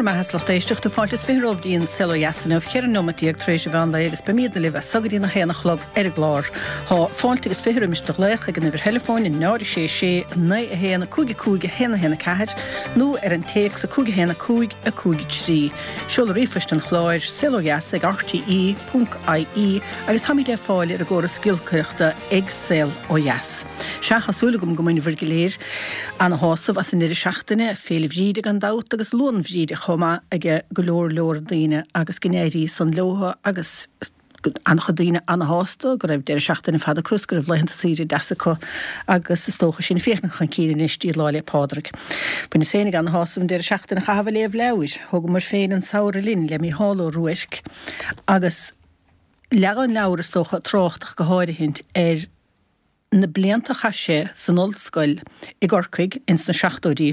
Bhur mbeatha 's lucht éisteachta, fáilte is 20 romhaibh dtí an Saol Ó Dheas inniu, 14 neomat tar éis an mheán lae agus beimídne libh as so go dtí na haon a chlog ar an gclár. Tá fáilte agus 20 roimis do ghlaoch ag an uimhir theileafóin 0 6 6 9 1 5 5 1 1 4 nó ar an téacs 5 1 5 5 3. Seoladh ríomhphoist an chláir, saolodheas ag rte ponc ie agus táimid le fáil ar an gcóras giolcaireachta ag Saol Ó Dheas. Sea, tá súil agam go mbainfear go léir ana-shásamh as an ndeireadh seachtaine, Féile Bhríde gan dabht agus Luan Bhríde chomh maith ag go leor leor daoine agus go n-éirí san leotha agus an-chuid daoine ana-shásta go raibh deireadh seachtaine fada acu is go raibh laethanta saoire deasa acu agus is dócha sinn ag féachaint chun cinn anois dtí Lá 'le Pádraig. Bhaineas féinig ana-shásamh an deireadh seachtaine a chaitheamh ag léamh leabhair. Thógamar féin An Samhradh Linn le Mícheál Ó Ruairc agus leagan an leabhar is dócha ag trácht ach go háirithint ar na blianta a chaith sé san ollscoil i gCorcaigh ins na seachtóidí.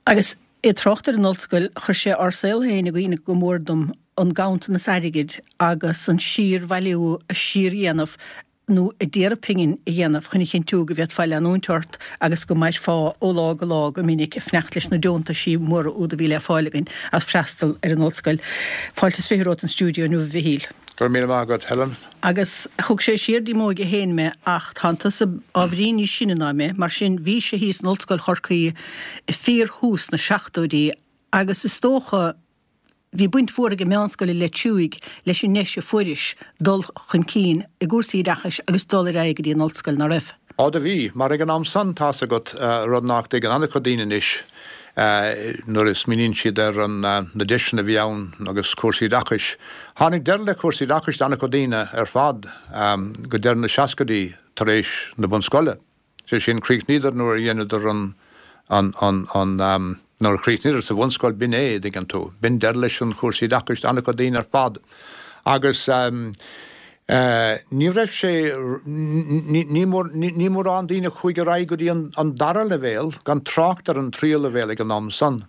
Agus é ag trácht ar an ollscoil, chuir sé ár saol féin i gcuimhne go mór dom, an ganntanas airgid agus an síor-bhailiú a síor-dhéanamh nó a d'iarraidh pingin a dhéanamh chun a chinntiú go bhféadfá leanúint ort agus go mairfeá ó lá go lá go minic ag fanacht leis na deontaisí móra úd a bhí le fáil againn as freastal ar an ollscoil. Fáilte is 20 romhat an stiúideo inniu a Mhichíl. Go raibh míle maith agat, Helen. Agus thug sé siar dtí m'óige féin mé ach tánn tusa ábhairín níos sine ná mé, mar sin bhís-se thíos in Ollscoil Chorcaí i fíor-thús na seachtóidí agus is dócha bhí baint mhór ag an Meánscoil i Leitir Fraic leis an ndeis a fuairis dul chun cinn i gcúrsaí oideachais agus dul ar aghaidh go dtí an ollscoil, ná raibh? Á do bhí, mar ag an am san, tá's agat, rud nach dtuigeann an-chuid daoine anois, nuair a smaoiníonn siad ar na deiseanna a bhí ann agus cúrsaí oideachais. Tháinig deireadh le cúrsaí oideachais d'an-chuid daoine ar fad go deireadh na seascaidí tar éis na bunscoile. Sé sin, chríochnaíodar nuair a dheineadar an, an, an, an, nuair a chríochnaíodar sa bhunscoil, b'in é, dtuigeann tú. B'in deireadh leis an chúrsaí oideachais d'an-chuid daoine ar fad. Agus ní raibh sé, ní, ní mórán daoine a chuaigh ar aghaidh go dtí an dara leibhéal, gan trácht ar an tríú leibhéal ag an am san.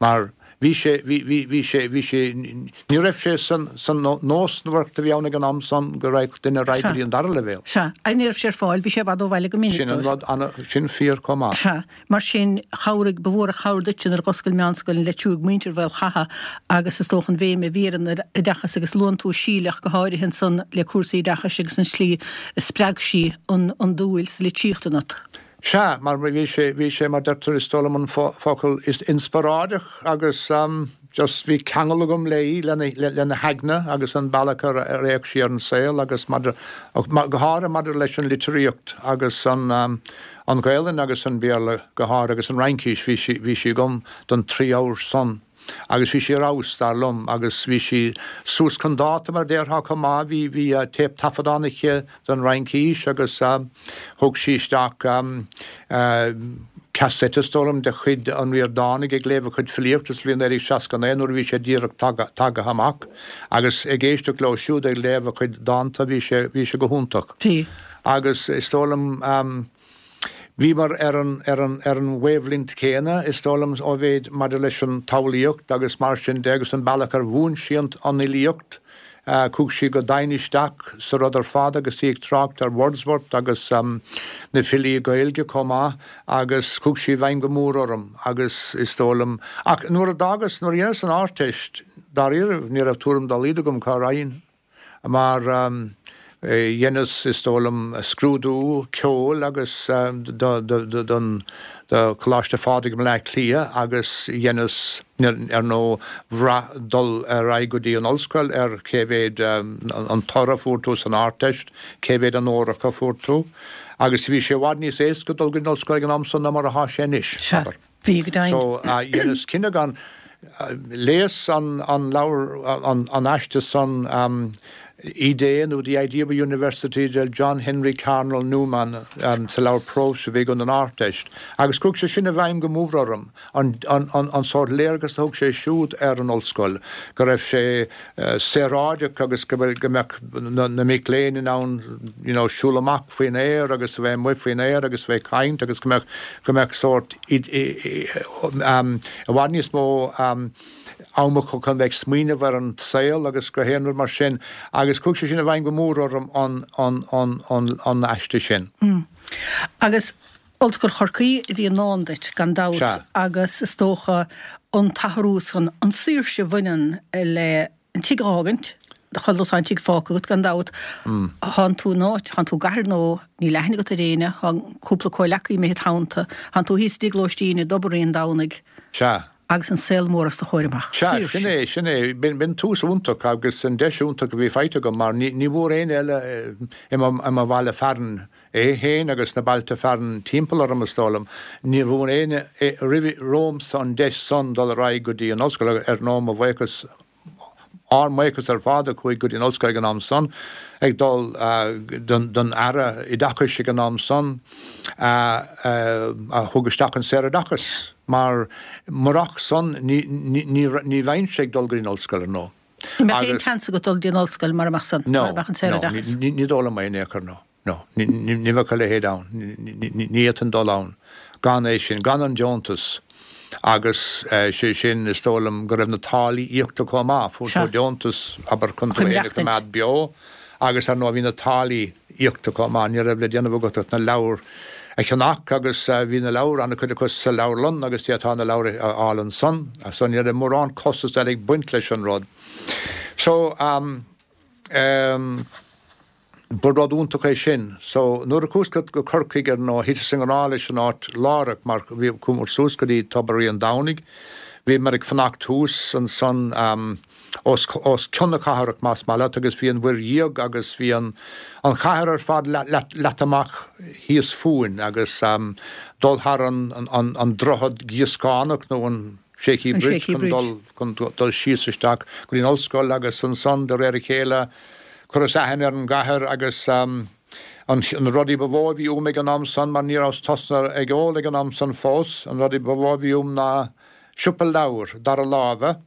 Mar bhí sé, bhí, bhí, bhí sé, bhí sé, ní raibh sé san, san nósmhaireacht a bhí ann ag an am san go raghadh duine ar aghaidh go dtí an dara leibhéal. Sea. Agus ní raibh sé ar fáil, bhí sé i bhfad ó bhaile go minic Sin an dóibh. rud, ana, sin fíor chomh maith. Sea. Mar sin, chabhraigh, ba mhór an chabhair duitse nuair a dh'oscail Meánscoil an Leitir Fraic muintir Mhaol Chatha agus is dócha an bhéim a bhí ar an oideachas agus luann tú Síle ach go háirithe ansan le cúrsaí oideachais agus an tslí a spreag sí an, an dúil sa litríocht ionat. Sea, mar bhí sé, bhí sé, mar deirtear, is dóigh liom an focal, is inspioráideach agus just bhí ceangal agam léi, lena, lena haigne agus an bealach ar fhéach sí ar an saol agus maidir, go háirithe maidir leis an litríocht agus an, an Ghaelainn agus an Béarla go háirithe agus an Fhraincis, bhí sí, bhí sí agam don trí abhar san. Agus bhí sí ar fheabhas, dar liom, agus bhí sí suas chun dáta, mar a déarfá, chomh maith. Bhí, bhí téip-taifeadán aici don Fhraincis agus thug sí isteach cassette, is dóigh liom, de chuid an Ríordánaigh ag léamh a chuid filíochta sa bhliain 1969 nuair a bhí sé díreach tagtha amach agus ag éisteacht leo siúd ag léamh a chuid dánta, bhí sé, bhí sé go hiontach. Bhí. Agus is dóigh liom. Bhíomar ar an, ar an, ar an wavelength céanna, is dóigh liom, ó mhéid maidir leis an tsamhlaíocht agus mar sin de agus an bealach ar mhúin sí an, an fhilíocht. Chuaigh sí go domhain isteach sa rud ar fad agus í ag trácht ar Wordsworth agus na filí Gaeilge chomh maith agus chuaigh sí i bhfeidhm go mór orm agus is dóigh liom, ach nuair a d'fhágas, nuair a dheineas an Ardteist, dáiríre, ní raibh tuairim dá laghad agam cá raghainn. Mar dheineas, is dóigh liom, scrúdú ceoil agus don do Choláiste Phádraig i mBleá Cliath agus dheineas, ar ndóigh, bhraith dul ar aghaidh go dtí an ollscoil ar cé mhéid an toradh a fuair tú san Ardteist, cé mhéad onóracha a fuair tú. Agus bhí sé i bhfad níos éasca dul go dtí an ollscoil ag an am san ná mar atá sé anois, abair. Bhí, go deimhin. So, dheineas cinneadh gan, léas an leabhar, an aiste san, Idée nó The Idea of a University de John Henry Carnell Newman sa leabhar próis a bhí agam don Ardteist agus chuaigh sé sin i bhfeidhm go mór orm, an sórt léargas a thug sé siúd ar an ollscoil, go raibh sé saoráideach agus go mbeadh na mic léinn in ann you know siúl amach faoin aer agus a bheith amuigh faoin aer agus a bheith ag caint agus go mbeadh go mbeadh sórt i bhfad níos mó am acu chun bheith ag smaoineamh ar an saol agus gach aon rud mar sin agus chuaigh sé sin i bhfeidhm go mór orm an an an an an aiste sin. Agus. Ollscoil Chorcaí a bhí i ndán duit, gan dabht, Sea. agus is dócha an t-athrú san, an saoirse a bhaineann le an tigh a fhágaint, do chuile an tigh fágtha agat, gan dabht. Thánn tú in áit, thánn tú i gcathair nó níl aithne agat ar éinne, thá cúpla comhleacaí imithe id theannta, thánn tú thíos i dtigh lóistín i dTobar Rí an Domhnaigh. Sea. Agus an saol mór os do chomhair amach. Sea, sin é, sin é. B'in tús iontach agus an deis iontach a bhí faighte agam mar ní bhfuair éinne eile i mo bhaile fearainn é féin agus na bailte fearainn timpeall orm, is dóigh liom. Ní bhfuair éinne roimh romhamsa an deis san dul ar aghaidh go dtí an ollscoil agus ar ndóigh mo bhuíochas, ár mbuíochas ar fad a chuaigh go dtí an ollscoil ag an am san, ag dul don Aire Oideachais ag an am san a thug isteach an saoroideachas mar murach san ní bheinnse ag dul go dtí an ollscoil ar ndóigh. Ní mbeadh aon tseans agat dul dtí an ollscoil mara mbeadh san, mara mbeadh an saoroideachas. No, ní dóigh liom é in aon chor, no. No, ní bheadh a leithéid ann. Ní fhéadfainn dul ann gan é sin, gan an deontas. Agus sé sin, is dóigh liom go raibh na táillí íocta chomh maith. Fuair tú deontas, abair, chun tú féin a choimeád beo agus ar ndóigh bhí na táillí íocta chomh maith. Ní raibh le déanamh agat ach na leabhair a cheannach agus bhí na leabhair, an-chuid acu sa leabharlann agus d'fhéadfá na leabhair a fháil ansan. So ní raibh mórán costas eile ag baint leis an rud. So, ehm. Ba rud iontach é sin. So, nuair a chuas go Corcaigh ar ndóigh, thiteas i ngrá leis an áit láithreach mar bhí, chuamar suas go dtí Tobar Rí an Domhnaigh, bhíomar ag fanacht thuas ansan os, os cionn na cathrach más maith leat agus bhí an Mhuir Dhiaidh agus bhí an, an chathair ar fad leata amach thíos fúinn agus dul thar an, an, an droichead gíoscánach nó an, Shaky An Bridge Shaky chun dul, chun dul síos isteach go dtí an ollscoil agus ansan de réir a chéile chuireas aithne ar an gcathair agus an, na rudaí ba mhó a bhí uaim ag an am san mar ní rabhas tosnaithe ag ól ag an am san fós, an rudaí ba mhó a bhí uaim ná siopa leabhar dara láimhe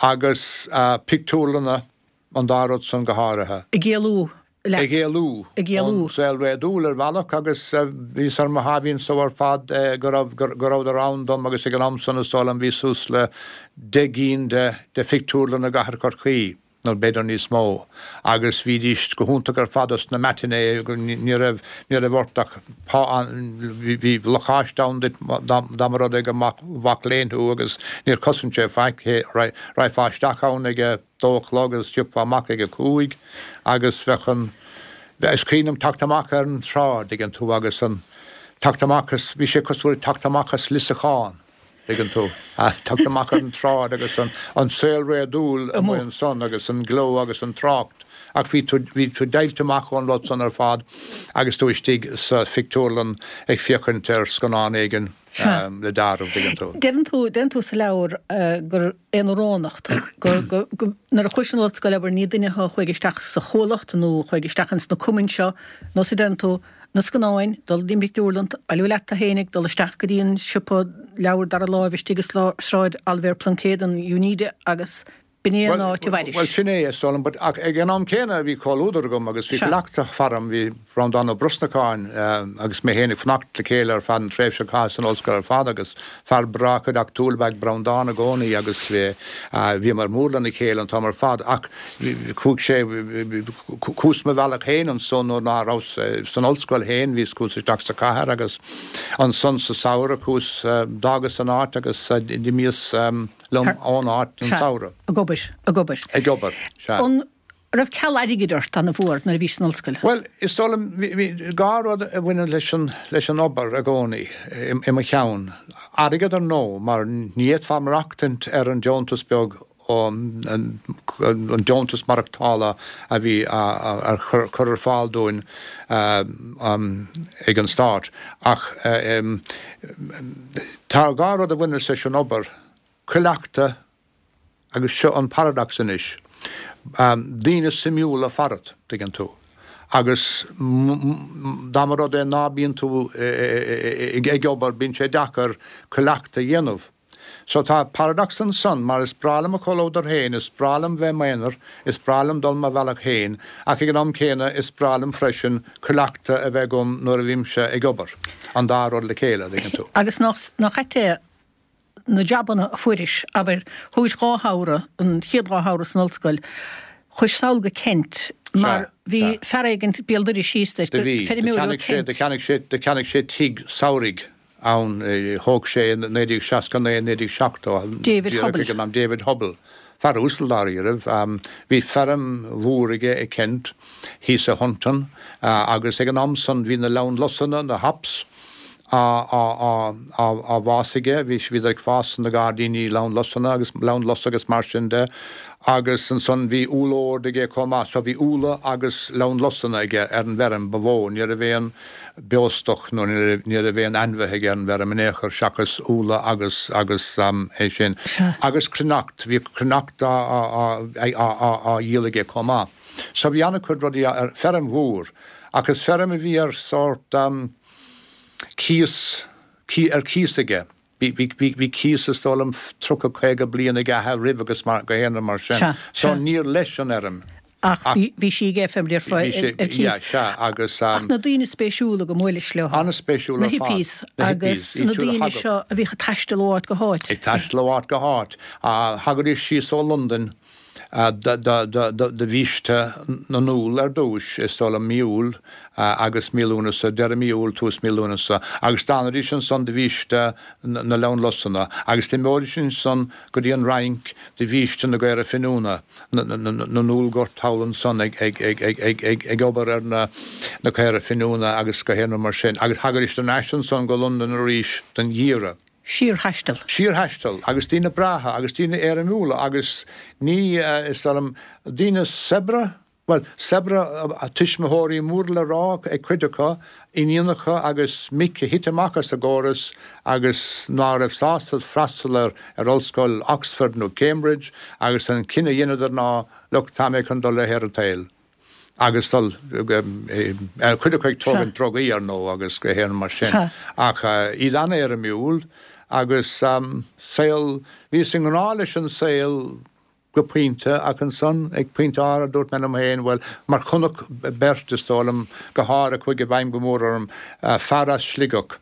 agus pictiúrlanna an dá rud san go háirithe. Ag éalú leat. Ag éalú. Ag éalú. Ón saol réadúil ar bhealach agus bhíos ar mo sháimhín só ar fad go raibh, go rabhadar ann dom agus ag an am san is dóigh liom bhí suas le 10 gcinn de, de phictiúrlanna i gcathair Chorcaí, nó b'fhéidir níos mó, agus bhídís go hiontach ar fad dos na matinee, ní raibh, ní raibh ort ach pá, bhí lacáiste ann duit dá mba rud é gur mac léinn thú agus níor chosain sé faic, raghfá isteach ann ag a. dó a chlog agus thiocfá amach ag a cúig agus bheadh an, is cuimhin liom teacht amach ar an tsráid, tuigeann tú, agus an, teacht amach as, bhí sé cosúil le teacht amach as liosachán, tuigeann tú, teacht amach ar an tsráid agus an, an saol réadúil amuigh ansan agus an gleo agus an trácht ach bhí tú, bhí tú deighilte amach ón rud san ar fad agus tú istigh sa phictiúrlann ag féachaint ar scannán éigin le dealramh, tuigeann tú. Deireann tú, deireann tú sa leabhar gur aonaránach tú, gur, go, go, nuair a chuais chun an ollscoile, abair, ní duine thú a chuaigh isteach sa chuallacht nó a chuaigh isteach ins na cumainn seo, nó a deireann tú, na scannáin, dul dtí an bpictiúrlann, bailiú leat tú fhéinig, dul isteach go dtí an siopa leabhar dara láimh istigh i Sráid Oilibhéar Pluincéid, an Uneeda agus B'in é an áit a mhairis. Bhuel, sin é, is dóigh liom, but ach ag an am céanna bhí comhluadar agam agus bhí cleachtadh faram, bhí Breandán Ó Brosnacháin agus mé féin ag fanacht le chéile ar feadh an tréimhse a chaitheas san ollscoil ar fad agus fear breá cuideachtúil ab ea Breandán i gcónaí agus bhíomar mór lena chéile an t-am ar fad ach chuaigh sé, chuas mo bhealach féin ansan nuair ná rabhas san ollscoil féin, bhíos, chuas isteach sa chathair agus ansan sa samhradh chuas, d'fhágas an áit agus d'imíos. liom ón áit an samhradh. Ag obair, ag obair. Ag obair, sea. An raibh ceal airgid ort an-mhór nuair a bhís san ollscoil? Bhuel, is dóigh liom, bhí dhá rud a bhaineann leis an, leis an obair i gcónaí i mo cheann. Airgead ar ndóigh, mar ní fhéadfá maireachtaint ar an deontas beag, an deontas maireachtála a bhí á chur ar fáil dúinn ag an stát. Ach tá dhá rud a bhaineas leis an obair, cuileachta agus seo an paradox anois, daoine suimiúla farat, tuigeann tú, agus dá mba rud é ná bíonn tú ag obair, bíonn sé deacair cuileachta a dhéanamh. So tá paradox ansan, mar is breá liom mo chomhluadar féin, is breá liom bheith i m'aonar, is breá liom dul mo bhealach féin, ach ag an am céanna is breá liom freisin cuileachta a bheith agam nuair a bhímse ag obair. An dá rud le chéile, an dtuigeann tú. Agus nach ait é na jabanna a fuairis, abair, thógais dhá shamhradh, an chéad dhá shamhradh san ollscoil. Chuais sall go Kent mar bhí fear éigint béal dorais síos duit, Do bhí. Do feirmeoir ó cheannaigh sé, Kent. do cheannaigh sé, do cheannaigh sé tigh samhraidh ann, thóg sé i 1969, 1970, David díreach Hubble. ag an am, David Hubble, fear uasal dáiríribh. Bhí feirm mhór aige i Kent, thíos i Hunton, agus ag an am san bhí na leamhanlusanna, na hops, á bhfás aige, bhí, bhíodar ag fás sna gairdíní leamhanlusanna agus leamhanlus agus mar sin de agus ansan bhí úllord aige chomh maith, so bhí úlla agus leamhanlusanna aige ar an bhfeirm ba mhó, ní raibh aon beostoc nó ní raibh aon ainmhithe aige ar an bhfeirm in aon chor seachas úlla agus, agus é sin. Agus cruithneacht, bhí cruithneacht á, á, á, á dhíol aige chomh maith. So bhí an-chuid rudaí ar, feirm mhór ach is feirm a bhí ar sórt, cíos, ar cíos aige. Bhí, bhí, bhí, bhí cíos is dóigh liom 30, 50 bliain ag a athair roimh agus mar, go haon rud mar sin. Sea, So sea. níor leis an fheirm. Ach bhí, bhí sí aige feirm ar, Bhí sé, ar cíos. yeah, sea, agus. Ach na daoine spéisiúla go mbuailis leo. An-spéisiúla Na ar fad. hippies Na agus hippies, iad na siúd a daoine thagadh. seo a bhíodh ag taisteal ó áit go háit. Ag taisteal ó áit go háit. Thagaidís síos ó Londain do bhiaiste na n-úll ar dtúis, is dóigh liom mí Iúil agus mí Lúnasa, deireadh mí Iúil, tús mí Lúnasa, agus d'fhanaidís ansan do bhiaiste na leamhanlusanna, agus d'imeoidís ansan go dtí an Fhrainc do bhiaiste na gcaora finiúna, na n-úllghort thall ansan ag obair ar na caora finiúna agus gach aon rud mar sin, agus thagaidís thar n-ais ansan go Londain arís don gheimhreadh. Síorthaisteal. Síorthaisteal, agus daoine breátha, agus daoine éirimiúla, agus ní, is dóigh liom, daoine saibhre, bhuel, saibhre, tuismitheoirí mór le rá ag cuid acu, iníonacha agus mic a thit amach as an gcóras agus ná raibh sásta freastal ar ar ollscoil Oxford nó Cambridge agus an cinneadh a dheineadar ná, look, tá mé chun dul le haer an tsaoil. agus dul, cuid acu ag tógaint drugaí ar ndóigh agus gach aon rud mar sin, ach iad an-éirimiúil agus saol, bhíos i ngrá leis an saol go pointe ach ansan ag pointe áirithe dúirt mé liom féin, bhuel, mar chonac beirt is dóigh liom go háirithe chuaigh i bhfeidhm go mór orm, fear as Sligeach,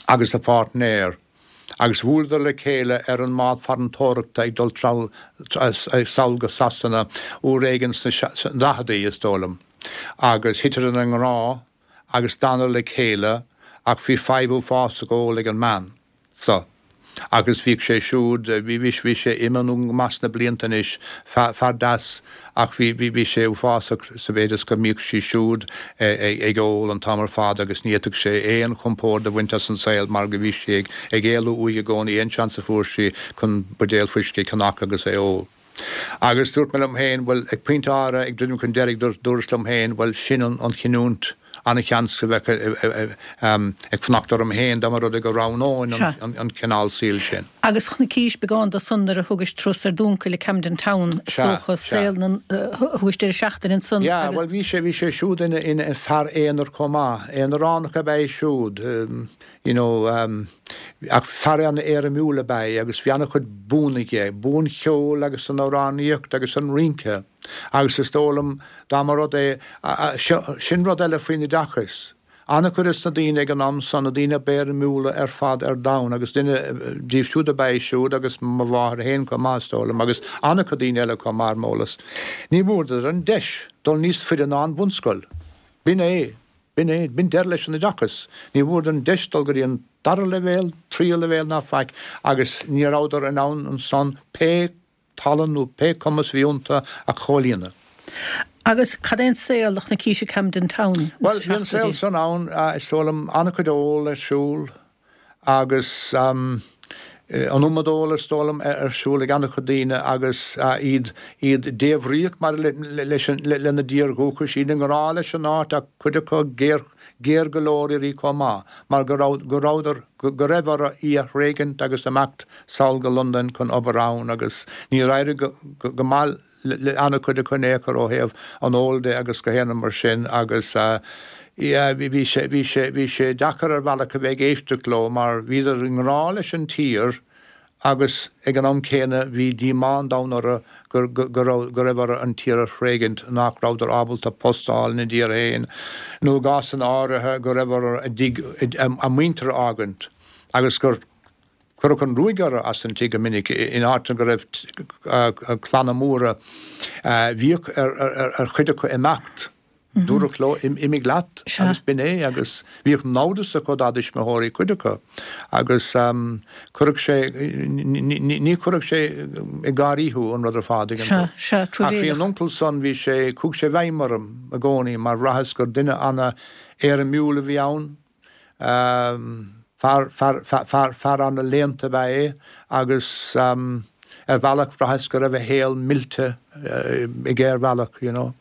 agus a pháirtnéir, agus bhuaileadar le chéile ar an mbád farantóireachta ag dul sall go Sasana uair éigin sna daicheadaí, is dóigh liom, agus thiteadar i ngrá agus d'fhanadar le chéile ach bhí fadhb uafásach óil ag an mbean. so. Agus bhíodh sé siúd, bhí, bhí, bhí sé imithe go maith sna blianta anois, fear deas ach bhí, bhí, bhí sé uafásach sa mhéid is go mbíodh sí siúd ag ól an t-am ar fad agus ní fhéadfadh sé aon chompord a bhaint as an saol mar go bhí sí ag, ag éalú uaidh i gcónaí aon seans a fuair sí chun buidéal fuiscí a cheannach agus é ól. Agus dúirt mé liom féin, bhuel, ag pointe áirithe, ag druidim chun deiridh, dúras liom féin, bhuel, sin an chinniúint, an-sheans go bheadh ag fanacht orm féin dá mba rud é go roghnóinn an cineál saoil sin. Agus chonaicís beagán de san nuair a thugais turas ar d'uncail i Camden Town, is dócha, saol na, thugais deireadh seachtaine ansan agus. Yeah, bhuel, bhí sé, bhí sé siúd ina fear aonair chomh maith, aonaránach ab ea é siúd. you know ach fear an-éirimiúil ab ea é agus bhí an-chuid buanna aige, bua an cheoil agus san amhránaíocht agus an rince agus is dóigh liom dá mba rud é, sin rud eile faoin oideachas, an-chuid de na daoine ag an am san, na daoine ab éirimiúla ar fad ar domhan agus duine díobh siúd ab ea é siúd agus mo mháthair féin chomh maith is dóigh liom agus an-chuid daoine eile chomh maith ar m'eolas. Ní bhfuaireadar an deis dul níos faide ná an bhunscoil. B'in é. B'in é, b'in deireadh leis an oideachas. Ní bhfuaireadar an deis dul go dtí an dara leibhéal, tríú leibhéal ná faic agus ní rabhadar in ann ansan pé tallann nó pé cumas a bhí iontu a chomhlíonadh. Agus cad é an saol a chonaicís i Camden Town sna Bhuel, bhí an saol seachtóidí? san ann, is dóigh liom, an-chuid óil ar siúl agus an iomad óil is dóigh liom ar siúl ag an-chuid daoine agus iad iad débhríoch maidir leis an lena dtír dhúchais, iad i ngrá leis an áit ach cuid acu géar géar go leor uirthi chomh maith mar go raibh go rabhadar go raibh orthu í a thréigint agus imeacht sall go Londain chun obair ann agus níor éirigh go go maith le an-chuid acu in aon chor ó thaobh an óil de agus gach aon rud mar sin agus yeah bhí sé, bhí sé, bhí sé deacair ar bhealach a bheith ag éisteacht leo mar bhíodar i ngrá leis an tír agus ag an am céanna bhí díomá an domhain orthu go, go, go raibh, go raibh orthu an tír a thréigint, nach rabhadar ábalta post a fháil ina dtír féin nó i gcásanna áirithe go raibh orthu a dtigh, a muintir a fhágaint agus gur. Cuireadh an ruaig orthu as an tigh go minic in áiteanna go raibh clanna móra. Bhíodh ar chuid acu imeacht. Dúradh leo, imigh leat agus b'in é agus bhíodh namhdas acu dá dtuismitheoirí, cuid acu, agus chuirfeadh sé, ní chuirfeadh sé ag gáirí thú an rud ar fad, tuigeann tú. Ach bhí an uncail san, bhí sé, chuaigh sé i bhfeidhm orm i gcónaí mar bhraitheas gur duine ana-éirimiúil a bhí ann, Fear, fear, fear, fear ana-léannta ab ea é agus ar bhealach bhraitheas go raibh a shaol millte aige ar bhealach, you know.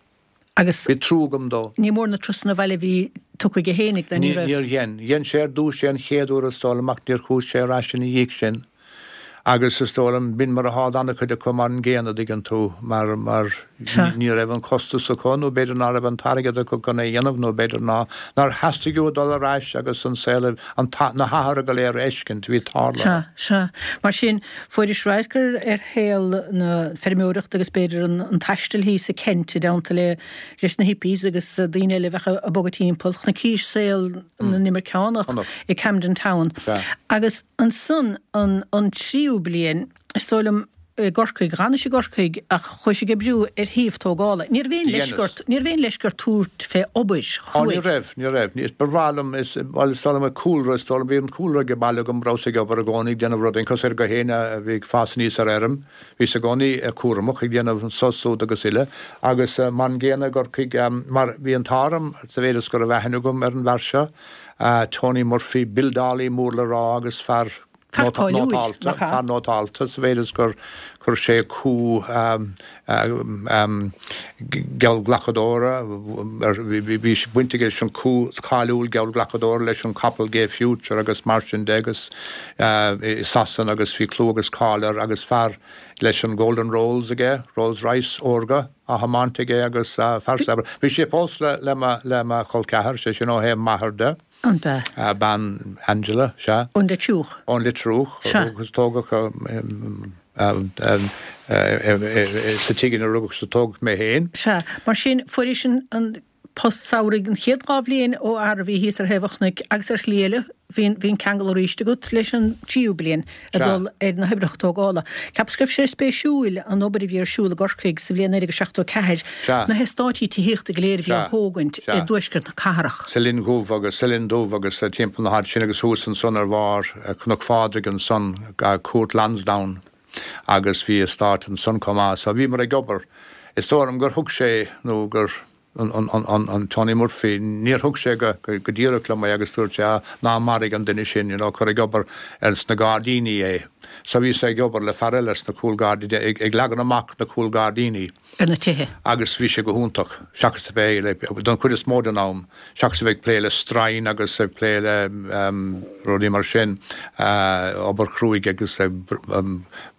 Agus Bhí trua agam dó. ní mór na turasanna abhaile a bhí tugtha aige fhéinig de, ní raibh. Níor dhein. Dhein sé ar dtús é an chéad uair is dóigh liom ach níor chuaigh sé ar ais ina dhiaidh sin. Agus is dóigh liom, b'in mar athá d'ana-chuid acu mar an gcéanna, dtuigeann tú, mar, mar ní raibh an costas acu nó b'fhéidir ná raibh an t-airgead acu chun é a dhéanamh nó b'fhéidir ná, nár theastaigh uathu dul ar ais agus an saol, an, na hathruithe go léir a fheiscint a bhí tarlaithe. Sea, sea. Mar sin, fuairis radharc ar, ar shaol na feirmeoireachta agus b'fhéidir an, an taistil thíos i Kent i dteannta le, leis na hippies agus daoine eile a bheadh ag bogadh timpeall. Chonaicis saol na n-imirceánach i Camden Town. Agus ansan an an tríú bliain, is dóigh liom, i gCorcaigh, dh'fhanais i gCorcaigh ach chuais ag oibriú ar shuíomh tógála. Ní raibh aon leisce ort, ní raibh aon leisce ort tabhairt fé obair Á, ní raibh, ní raibh. Ní, ba bhreá liom, is, bhuel, is dóigh liom an cúlra, is dóigh liom, bhí an cúlra ag baile agam, rabhas ag obair i gcónaí, ag déanamh rudaí, cosúil le gach éinne a bhí ag fás aníos ar fheirm. Bhíos i gcónaí cúramach, ag déanamh an sos úd agus uile, agus mar an gcéanna i gCorcaigh, mar bhí an t-ádh orm, sa mhéid is go raibh aithne agam ar an bhfear seo, Tony Murphy, buildeálaí mór le rá agus fear nótálta, fear nótálta, sa mhéid is gur chuir sé cú geallghlacadóra, bhí baint aige leis an cú cáiliúil geallghlacadóra leis an capall Gay Future agus mar sin de agus i Sasana agus bhí clú agus cáil air agus fear leis an Golden Rolls aige, Rolls Royce órga á thiomáint aige agus fear saibhir. Bhí sé pósta le mo chol ceathar, sé sin ó thaobh m'athar de. An b'ea? Bean Angela, sea. Ón Leitriúch. Ón Leitriúch. Sea. Agus tógadh sa tigh ina rugadh is a tógadh mé féin. Sea. Mar sin, fuairis an post samhraidh an chéad dhá bhliain ó fhear a bhí thíos ar thaobh an chnoic agus ar shlí eile bhí an ceangal arís agat leis an tríú bliain. ag dul ar na hoibreacha tógála. Cheapas go raibh sé spéisiúil an obair a bhí ar siúl i gCorcaigh sa bhliain 1974, na heastáití tithíochta go léir a bhí á thógaint i dtuaisceart na cathrach. Sa Linn Dhubh agus sa Linn Dubh agus timpeall na háite sin agus thuas ansan ar bharr Chnoc Phádraig ansan, Cúirt Lansdowne agus bhí eastát ansan chomh maith. So bhíomar ag obair. Is dóigh liom gur thug sé nó gur. an Tony Murphy, níor thug sé go díreach liom é agus dúirt sé, ah, ná maraigh an duine sin, you know, cuir ag obair ar sna gairdíní é. So bhíos ag obair le fear eile sna cúlghairdíní, ag leagan amach na cúlghairdíní. Ar na tithe. Agus bhí sé go hiontach, seachas a bheith, like, don chuid is mó den am, seachas a bheith ag plé le stroighin agus ag plé le rudaí mar sin, obair chruaidh agus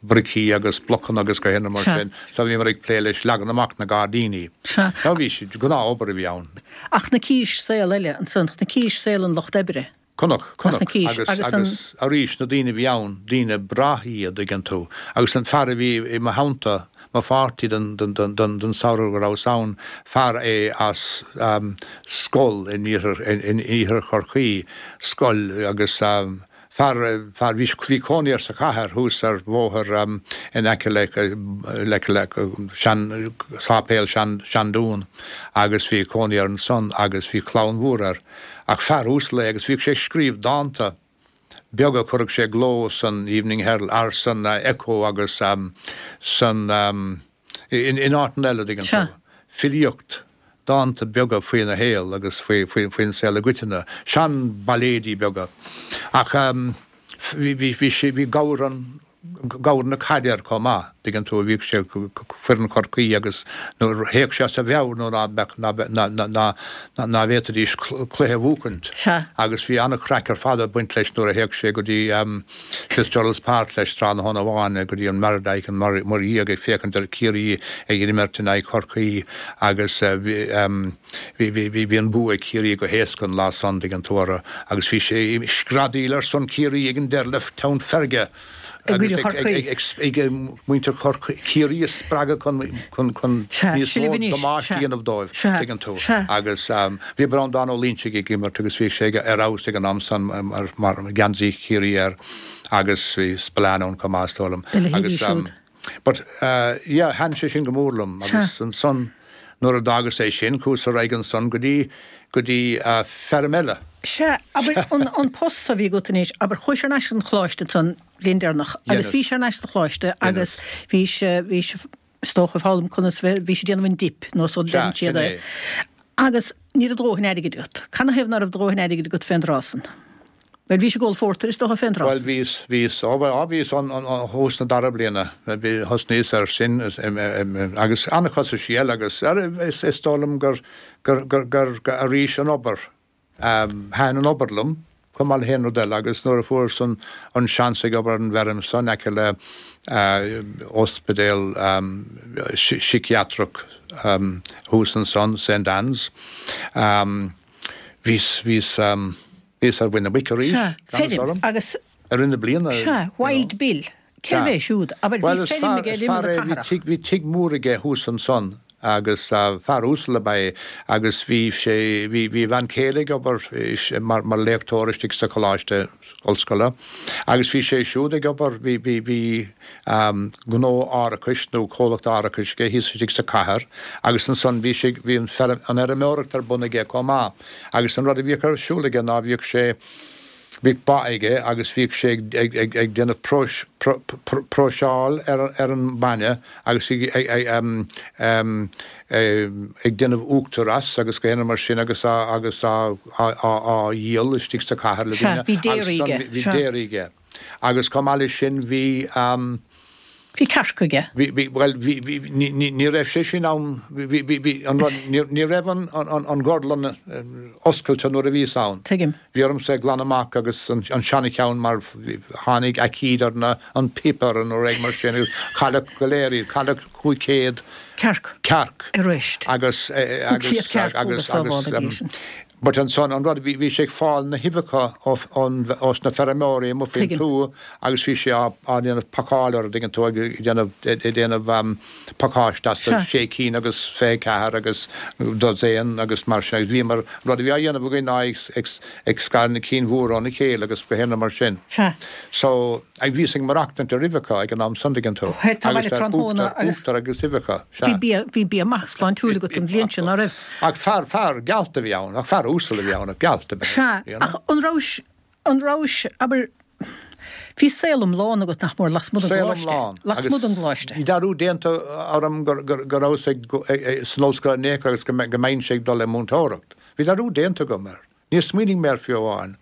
bricí agus blocanna agus gach aon rud mar sin. So bhíomar ag plé leis leagan amach na gairdíní. Sea. So bhí sé, gnáth-obair a bhí ann. Ach chonaicis saol eile ansan, chonaicis saol an lucht oibre. Chonac, chonac. Agus, agus agus arís na daoine a bhí ann, daoine breátha iad, dtuigeann tú. Agus an fear a bhí i mo theannta, mo pháirtí don, don, don, don, don samhradh go rabhas ann, fear é as scoil in iarthar, in iarthar Chorcaí, scoil agus, Fear, fear, bhí, bhí cónaí air sa chathair thuas ar bhóthar in aice le, le, le sean, sáipéal sean, Seandún agus bhí cónaí air ansan agus bhí clann mhór air. Ach fear uasal é agus bhíodh sé ag scríobh dánta beaga a chuireadh sé i gcló san Evening Herald, ar san Echo agus san, In áiteanna eile, dtuigeann tú. Filíocht, dánta beaga faoina shaol agus faoin saol i gcoitinne. Sean-bhailéidí beaga. Ach bhí, bhí sé, bhí gabhar an, gabhar na caide air chomh maith, dtuigeann tú, bhíodh sé, foireann Chorcaí agus nuair a théadh sé as a mheabhair nuair ná beadh, ná, ná, ná, ná bhféadfaidís cluiche a bhuachaint. Agus bhí an-chraic ar fad ag baint leis nuair a théadh sé go dtí, Fitzgerald's Park leis tráthnóna amháin go dtí an Mardyke an Muir Dhiaidh ag féachaint ar Ciarraí ag imirt in aghaidh Chorcaí agus bhí an bua ag Ciarraí go héasca an lá san, dtuigeann tú, orthu agus bhí sé ag screadaíl ar son Ciarraí ag an deireadh le teann feirge. agus ag muintir Chiarraí a spreagadh chun níos mó damáiste a dhéanamh dóibh, tuigeann tú. Agus bhí Breandán Ó Loingsigh ag imirt agus bhí sé ar fheabhas ag an am san mar geansaí Chiarraí air agus bhí Spillane ann chomh maith is dóigh liom. Agus But yeah, thaitin sé sin go mór liom agus ansan nuair a d'fhágas é sin, chuas ar aghaidh ansan go dtí, go dtí feirm eile. Sea, abair, an, an post so a bhí agat anois, abair, chuais thar n-ais chun an choláiste ansan bliain deireanach agus bhís thar n-ais sa choláiste agus bhís, bhís, is dócha, ag foghlaim conas bheith, bhís ag déanamh an dip nó so deireann siad é. Agus ní raibh do dhóthain airgid agat. Canathaobh ná raibh do dhóthain airgid agat fén dtráth san? Bhuel, bhís ag ól phórtair, is dócha, fén dtráth san. Bhuel, bhíos, bhíos, ó, bhuel, á, bhíos an, an, an, thús na dara bliana, bhí, thosnaíos air sin, agus an-chostaisí eile agus, ar, is, is dóigh liom gur, gur, gur, gur, gur, arís, an obair, thaitin an obair liom, chomh maith le haon rud eile agus nuair a fuaireas an, an seans ag obair ar an bhfeirm so in aice le ospidéal síciatrach thuas ansan, Saint Anne's, bhíos, bhíos, Bhíos ar mhuin na muice arís, Sea, gan fheirm orm, agus. i rith na bliana, Sea, you know. Wild Bill. Cérbh é siúd? Abair, bhí Bhuel, is feirm fear, aige ar is imeall fear na é, bhí cathrach. tigh, bhí tigh mór aige thuas ansan agus fear uasal ab ea é agus bhí sé, bhí, bhí a bhean chéile ag obair mar, mar léachtóir istigh sa choláiste ollscoile agus bhí sé siúd ag obair, bhí, bhí, bhí gnó árachais nó comhlacht árachais aige thíos istigh sa chathair agus ansan bhí sé, bhí an feirm, an fheirmeoireacht ar bun aige chomh maith. Agus an rud a bhíodh ar siúl aige ná bhíodh sé, bhíodh ba aige agus bhíodh sé ag, ag, ag, ag déanamh próis, pró, pró, próiseáil ar, ar an mbainne agus ag, ag, ag, em, em, ag déanamh uachtar as agus gach aon rud mar sin agus á, agus á, á, á, á dhíol istigh sa chathair le Sea, daoine bhí agus déirí ansan aige, bhí sea. déirí aige. Agus chomh maith leis sin bhí, em, Bhí cearc aige. Bhí, bhí, bhuel, bhí, bhí, ní, ní, ní raibh sé sin ann, bhí, bhí, bhí, an rud, ní, ní raibh an, an, an, an gorlann oscailte nuair a bhíos ann. Tuigim. Bhí ormsa é glanadh amach agus an, an seana-cheann mar tháinig aicíd ar na, an píopa ar an rud mar sin agus cailleadh go léir iad, cailleadh 500. Cearc. Cearc. Arís. Agus, agus, 500 cearc, agus, agus sábháil agus, a bhí sin. But ansan, an rud, bhí, bhí sé ag fáil na huibheacha ó, ón, ós na feirmeoirí amuigh faoin Tuigim. tuath agus bhí sé á, á ndéanamh pacáil orthu, dtuigeann tú, ag déanamh, ag déanamh pacáiste astu, Sea. sé cinn agus 24 agus dosaen agus mar sin agus bhíomar, an rud a bhí á dhéanamh againn ná ag, ag, ag scaradh na cinn mhóra óna chéile agus gach aon rud mar sin. Sea. So, ag, bhíos ag maireachtaint ar uibheacha ag an am san, dtuigeann tú, Tá agus bhaile ar tráthnóna uachtar, agus. uachtar agus uibheacha, Bhí sea. bia, bhí bia maith sláintiúil agat an bhliain sin, ná raibh? Ach fear, fear gealt a bhí ann, ach fear uasal a bhí ann, ach gealt ab ea é, Sea, you know. ach an rabhais, an rabhais, abair, bhí saol iomlán agat nach mór lasmuigh den Saol gcoláiste, iomlán, lasmuigh agus den gcoláiste. bhí dearúd déanta orm gur, gur, go rabhas ag, ag, san ollscoil in aon chor agus go mbe, go mbeinnse ag dul le múinteoireacht. Bhí dearúd déanta agam air. Níor smaoinigh mé air fiú amháin.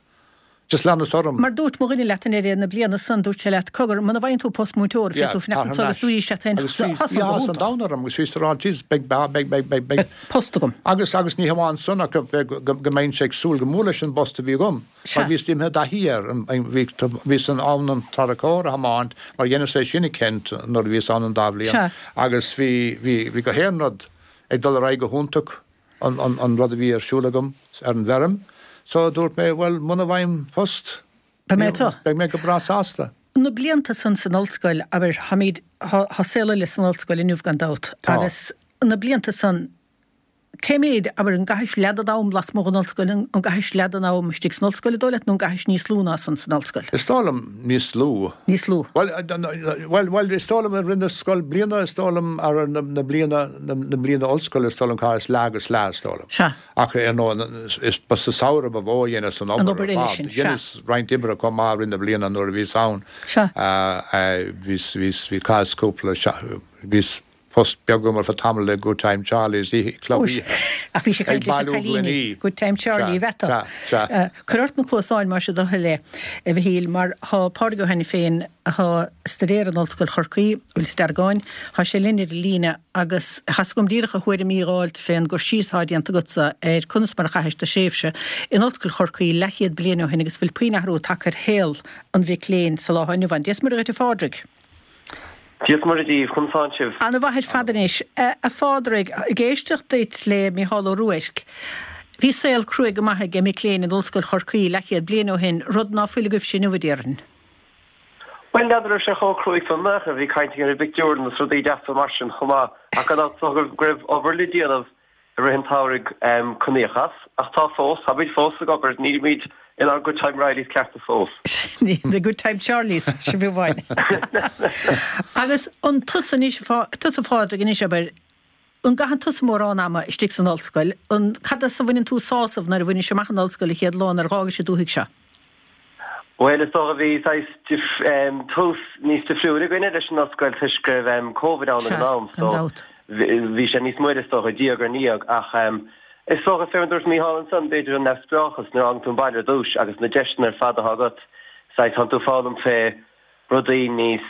Just leanas orm. Mar dúirt mo dhuine leat i ndeireadh na bliana san, dúirt sé leat, cogar, muna bhfaigheann tú post múinteora, Yeah, féadfaidh tú tar fanacht thar anso agus n-ais. dúirt sé leat féin, Agus bhí, tá bhí san go áthas an hiontach. domhain orm agus bhíos ag rá, jeez, beidh, beidh, beidh, beidh, beidh, beidh. Post agam. Agus, agus ní hamháin san ach go, go, go, go mbeinnse ag súil go mór leis an bpost a bhí agam. Sea. Mar bhíos imithe i dtaithí air. Bhí, bhíos in ann an tarracóir a thiomáint mar dheineas é sin i Kent nuair a bhíos ann an dá bhliain. Sea. Agus bhí, bhí, bhí gach aon rud ag dul ar aghaidh go hiontach. an rud a bhí ar siúl agam ar an bhfeirm. So dúirt mé, bhuel, muna bhfaighim post, Beidh mé anseo. beidh mé go breá sásta. Na blianta san san ollscoil, abair, táimid, tá saol eile san ollscoil inniu gan dabht, Tá. agus na blianta san, cé méid, abair, an gcaithis leath den am lasmuigh den ollscoil, an gcaithis leath den am istigh san ollscoil, an dóigh leat, nó an gcaithis níos lú ná san san ollscoil? Is dóigh liom níos lú. Níos lú. Bhuel, bhuel, bhuel, is dóigh liom i rith na scoilbhliana, is dóigh liom, ar na, na bliana, na, na bliana ollscoile, is dóigh liom, chaitheas leath agus leath, is dóigh liom. Sea. Ach, ar ndóigh, is, ba sa samhradh ba mhó a dheineas an An obair obair ar eile fad. sin, sea. Dheineas roinnt oibre chomh maith i rith na bliana nuair a bhíos ann. Sea. Bhíos, bhíos, bhí, chaitheas cúpla, bhíos, post beag agam ar feadh tamaill le Good Time Charlie's, oíche, club oíche. Ach bhís ag Ag caint leis na bailiú cailíní, gloiní. Good Time Charlie, Sea, a bheatha. sea, sea. Cuir ort na cluasáin más é do thoil é, a Mhichíl, mar thá Pádraig Ó hAiniféin, athá ag staidéar in Ollscoil Chorcaí, Inis Deargáin, thá sé linn ar an líne agus thá's agam díreach a thuairimí dh'fháilt fén gcur síos athá déanta agatsa ar conas mar a chaithis do thréimhse in Ollscoil Chorcaí leathchéad bliain ó shin agus bhfuil puinn athrú tagtha ar shaol an mhic léinn sa lá athá inniu ann. Dia 's Muire dhuit a Phádraig. Dia 's Muire daoibh, conas tánn sibh? Ana mhaith ar fad anois. A Phádraig, ag éisteacht duit le Mícheál Ó Ruairc, bhí saol cruaidh go maith ag mic léinn in Ollscoil Chorcaí leathchéad bliain ó shin, rud ná fuil agaibhse inniu, a déarfainn. Bhuel, n'fheadar raibh sé chomh cruaidh san ach bhí caint againn ar an bpictiúrlann agus rudaí deasa mar sin chomh maith ach gan dabht is dócha go raibh obair le déanamh i rith an tsamhraidh chun íoc as. Ach tá fós, táimid fós ag obair, nílimid inár Good Time Reillys cearta fós. The Good Time Charlies, sin fiú amháin. Agus an tusa anois, tusa a Phádraig anois, abair, an gcaitheann tusa mórán ama istigh san ollscoil, an, cad as a bhaineann tú sásamh nuair a bhainis amach an ollscoil an chéad lá nuair a dh'fhágais an dúthaigh seo? Bhuel, is dócha bhí saghas tús níos difriúil againne leis an ollscoil toisc go raibh Covid ann ag an am so bhí sé níos moille is dócha, diaidh ar ndiaidh ach is dócha, fé mar a dúirt Mícheál ansan, b'fhéidir an neamhspleáchas nuair a fhágann tú an baile ar dtús agus na deiseanna ar fad atá agat, saghas tánn tú ag foghlaim fé rudaí níos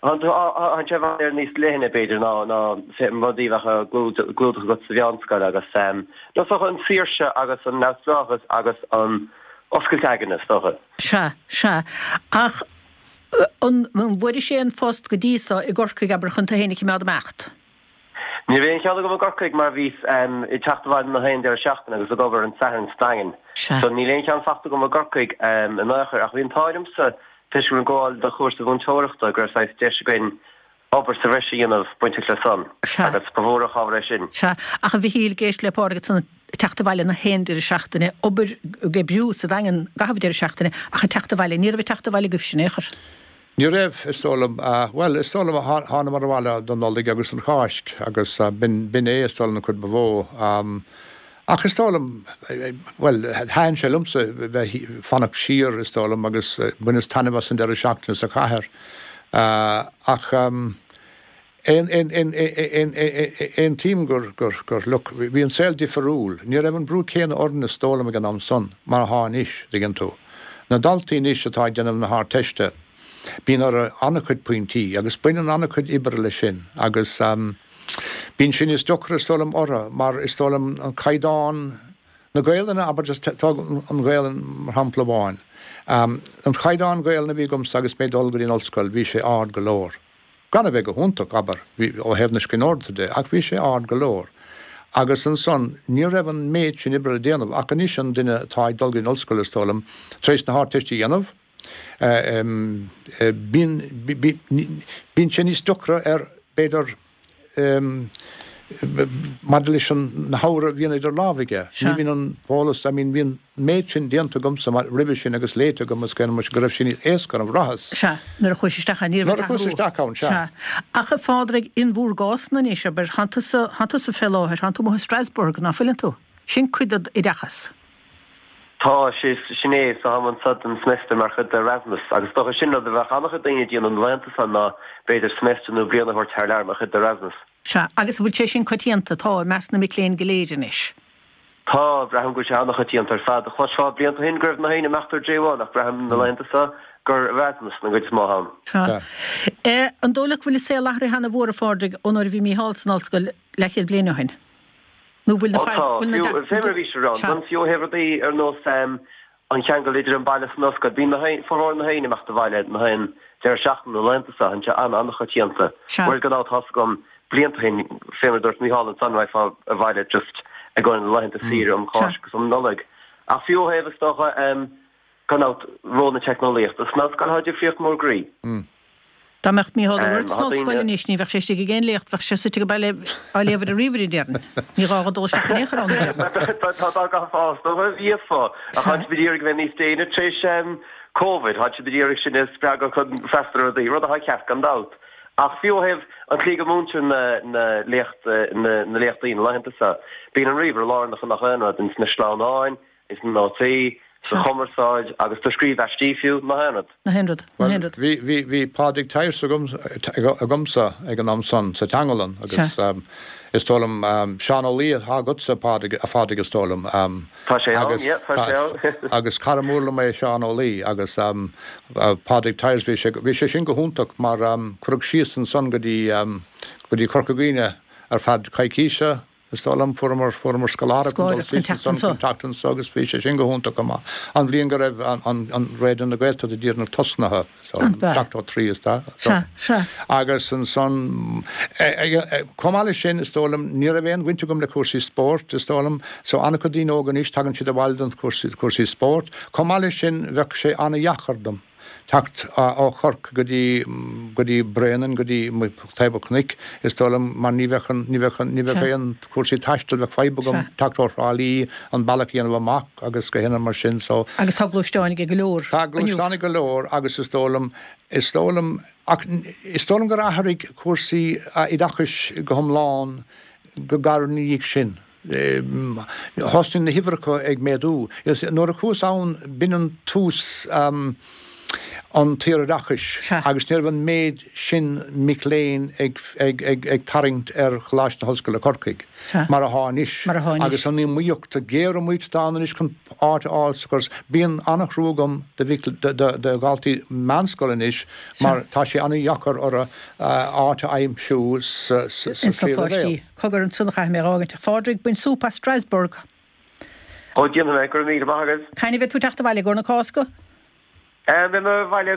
Tá sé i bhfad Éireann níos leithne, b'fhéidir, ná na rudaí a bheadh á gclúdach agat sa mheánscoil agus, nó is dócha, an tsaoirse agus an neamhspleáchas agus an oscailt aigne, is dócha. Sea, sea. Ach an bhfuairis aon phost go dtí so i gCorcaigh, abair, chun tú féin a chimeád ag imeacht? Ní raibh aon cheann agam i gCorcaigh mar bhíos ag teacht abhaile na haon deireadh seachtaine agus ag obair an Satharn sa Daingean. So níl aon cheann fachta agam i gCorcaigh in aon chor ach bhí an t-ádh liomsa toisc go raibh mé ag gabháil do chúrsa mhúinteoireachta go raibh saghas deis againn obair sa bhreis a dhéanamh bainteach le san agus ba mhór an chabhair é sin. Sea. Ach a Mhichíl, ag éisteacht le Pádraig ansan ag teacht abhaile na haon deireadh seachtaine, obair, ag oibriú sa Daingean i gcaitheamh an deireadh seachtaine ach ag teacht abhaile, ní raibh ag teacht abhaile agaibhse in aon chor. Ní raibh, is dóigh liom. Bhuel, is dóigh liom, thánamar abhaile don Nollaig agus don Cháisc agus b'in é, is dóigh liom, an chuid ba mhó. Ach is dóigh liom, bhuel, thaitin sé liomsa bheith, fanacht siar, is dóigh liom, agus bhaineas taitneamh as an deireadh seachtaine sa chathair. Ach aontaím gur, gur, gur, look, bhí an saol difiriúil. Ní raibh an brú céanna orainn, is dóigh liom, ag an am san, mar atá anois, dtuigeann tú. Na daltaí anois atá ag déanamh na hArdteiste, bíonn orthu an-chuid pointí agus baineann an-chuid oibre leis sin agus bíonn sé níos deacra, is dóigh liom, orthu mar is dóigh liom an caighdeán na Gaelainne, abair, just tóg an Ghaelainn mar shampla amháin. An caighdeán Gaelainne a bhí agamsa agus mé ag dul go dtí an ollscoil, bhí sé ard go leor. Gan a bheith go hiontach, abair, ó thaobh na scríbhneoireachta de, ach bhí sé ard go leor. Agus ansan, ní raibh an méid sin oibre le déanamh, ach anois an duine atá ag dul go dtí an ollscoil, is dóigh liom, tar éis na hArdteiste a dhéanamh, bíonn, bíonn sé níos deacra air, b'fhéidir, maidir leis an, na hábhair a bhíonn idir lámha aige. Ní bhíonn an t-eolas, I mean, bhí an méid sin déanta agamsa roimhe sin agus léite agam agus go raibh sé níos éasca orm, bhraitheas. Sea, nuair a chuais isteach ann, ní raibh an t-athrú. Nuair a chuas isteach ann, sea. Sea. Ach a Phádraig, in bhúr gcás-na anois, abair, thánn tusa, thánn tusa fé láthair, thánn tú amuigh i Strasbourg, ná fuileann tú? Sin cuid dod oideachas. Tá, sin é, so táim anso don semester mar chuid d'Erasmus agus is dócha sin rud a bheadh an-chuid daoine ag déanamh na laethanta seo ná b'fhéidir semester nó bliain a thabhairt thar lear mar chuid d'Erasmus. Sea, agus an bhfuil sé sin coitianta, tá, i measc na mic léinn go léir anois? Tá, braithim go bhfuil sé an-choitianta ar fad. Chloisfeá blianta ó shin go raibh na haoinne ag imeacht ar J1 ach braithim na laethanta seo gur Erasmus an gcuid is mó ann. Sea. An dóigh leat go bhfuil an saol athraithe ana-mhór, a Phádraig, ón uair a bhí Mícheál san ollscoil leathchéad bliain ó shin? Nó bhfuil na Ó tá, fiú, fé mar a bhí sé ann, fiú ó thaobh rudaí ar nós an cheangal idir an baile is an ollscoil. Bíonn na haon, formhór na haoinne ag imeacht abhaile na haon deireadh seachtaine na laethanta seo, tá sé an-an-choitianta. Sea. Whereas gan dabht tá's agam blianta ó shin, fé mar a dúirt Mícheál ansan, raghfá abhaile just i gcomhair na laethanta saoire um Cháisc agus um Nollaig. Ach fiú ó thaobh, is dócha, gan dabht, ról na teicneolaíochta san ollscoil, tá difríocht mór groí. Dá mbeadh Mícheál Ó Ruairc san ollscoil anois ní bheadh sé istigh ag aon léacht, bheadh sé suite ag baile á léamh ar an ríomhaire, déarfainn. Ní gá dhó dul isteach in aon chor ann, a déarfainn. Tá dá gcaithfeá, is dócha, bhíofá. Ach tá siad ag iarraidh a bheith níos déine tar éis Covid, tá siad ag iarraidh sinn a spreagadh chun freastal ar rudaí, rud atá ceart gan dabht. Ach fiú ó thaobh an tslí go múintear na léachtaí na laethanta seo, bíonn an ríomhaire lárnach i ngach aon rud, ins na sleamhnáin, ins na nótaí, sa chumarsáid agus do scríobh aistí fiú, na haon rud. Na haon rud. Na haon rud. Bhuel, bhí, bhí, bhí Pádraig Tyers agam, agamsa ag an am san sa teanglann agus is dóigh liom, Seán Ó Laoi atá agatsa, Pádraig, a Phádraig is dóigh liom. Tá sé ann, yeah, tá sé ann. Agus cara mór liom é Seán Ó Laoi agus Pádraig Tyers, bhí sé, bhí sé sin go hiontach mar cuireadh síos ansan go dtí, go dtí Corca Dhuibhne ar feadh coicíse, Is dóigh liom, fuaireamar, fuaireamar scoláireacht chun dul síos ansan chun teacht anso agus bhí sé sin go hiontach chomh maith. An bhliain go raibh an, an Raidió na Gaeltachta díreach tosnaithe, so, 73 is dóigh. Sea, sea. Agus ansan, chomh maith leis sin, is dóigh liom, ní raibh aon bhaint agam le cúrsaí spóirt, is dóigh liom, so an-chuid daoine óga anois, tagann siad abhaile don chúrsaí, cúrsaí spóirt. Chomh maith leis sin, bheadh sé an-dheacair dom. Teacht ó Chorcaigh go dtí, go dtí Bréanainn, go dtí taobh an chnoic, is dóigh liom, mar ní bheadh an, ní bheadh an, ní bheadh aon chúrsaí taistil, bheadh fadhb agam teacht ó Thrá Lí, an bealach a dhéanamh amach agus gach aon rud mar sin, so. Agus tá gluaisteáin ag go leor Tá gluaisteáin ag go leor agus is dóigh liom, is dóigh liom, ach is dóigh liom gur athraigh cúrsaí oideachais go hiomlán go gairid ina dhiaidh sin. Thosnaigh na huimhreacha ag méadú. Nuair a chuas ann, b'in an tús an tsaoroideachais agus ní raibh an méid sin mic léinn ag tarraingt ar Choláiste na hOllscoile Corcaigh mar athá anois. Agus an iomaíocht, géariomaíocht atá ann anois chun áit a fháil sa chóras. Bíonn an-thrua agam do dhaltaí meánscoile anois mar tá sé an-dheacair orthu áit a aimsiú sa tríú leibhéal. Cogar ansan a chaithfidh mé a dh'fhágaint. A Phádraig, bain súp as Strasbourg! Ó, déanfaidh mé, go raibh míle maith agat. Cathain a bheidh tú ag teacht abhaile, i gcomhair na Cásca? Beidh mé abhaile,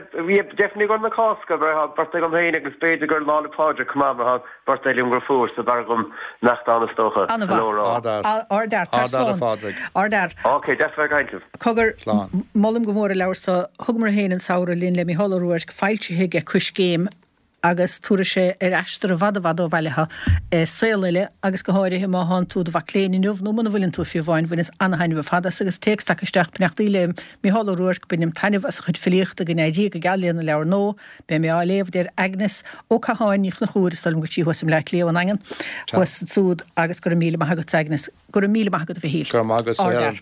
definitely i gcomhair na Cásca, mar tá birthday agam féin agus b'fhéidir gur Lá 'le Pádraig chomh maith, mar tá birthday liom dheirfiúr, so b'fhearr dhom imeacht ann is dócha. An-mhaith. Ard-fhear. Ard-fhear. Tar Ard-fhear, a slán. Phádraig. Ard-fhear. Ok, deas a bheith ag caint libh. Cogar, Slán. molaim go mór an leabhar so. Thugamar féin an samhradh linn le Mícheál Ó Ruairc, foilsithe aige Coiscéim. agus tabharfaidh sé ar aistear i bhfad i bhfad ó bhaile thú i saol eile agus go háirithe má thánn tú i do mhac léinn inniu nó muna bhfuileann tú fiú amháin, bhaineas ana-thaitneamh ar fad as agus téacs tagtha isteach, Beannachtaí le Mícheál Ó Ruairc, bainim taitneamh as a chuid filíochta, go n-éirí go geal lena leabhar nua, beidh mé á léamh, a deir Agnes Ó Catháin Ní Chonchúir, is dóigh liom go bhfuil sí thuas i mBleá Cliath ón nDaingean, thuas ansúd agus go raibh míle maith agat Agnes. Go raibh míle maith agat a Mhichíl. Go raibh maith agat, a Helen.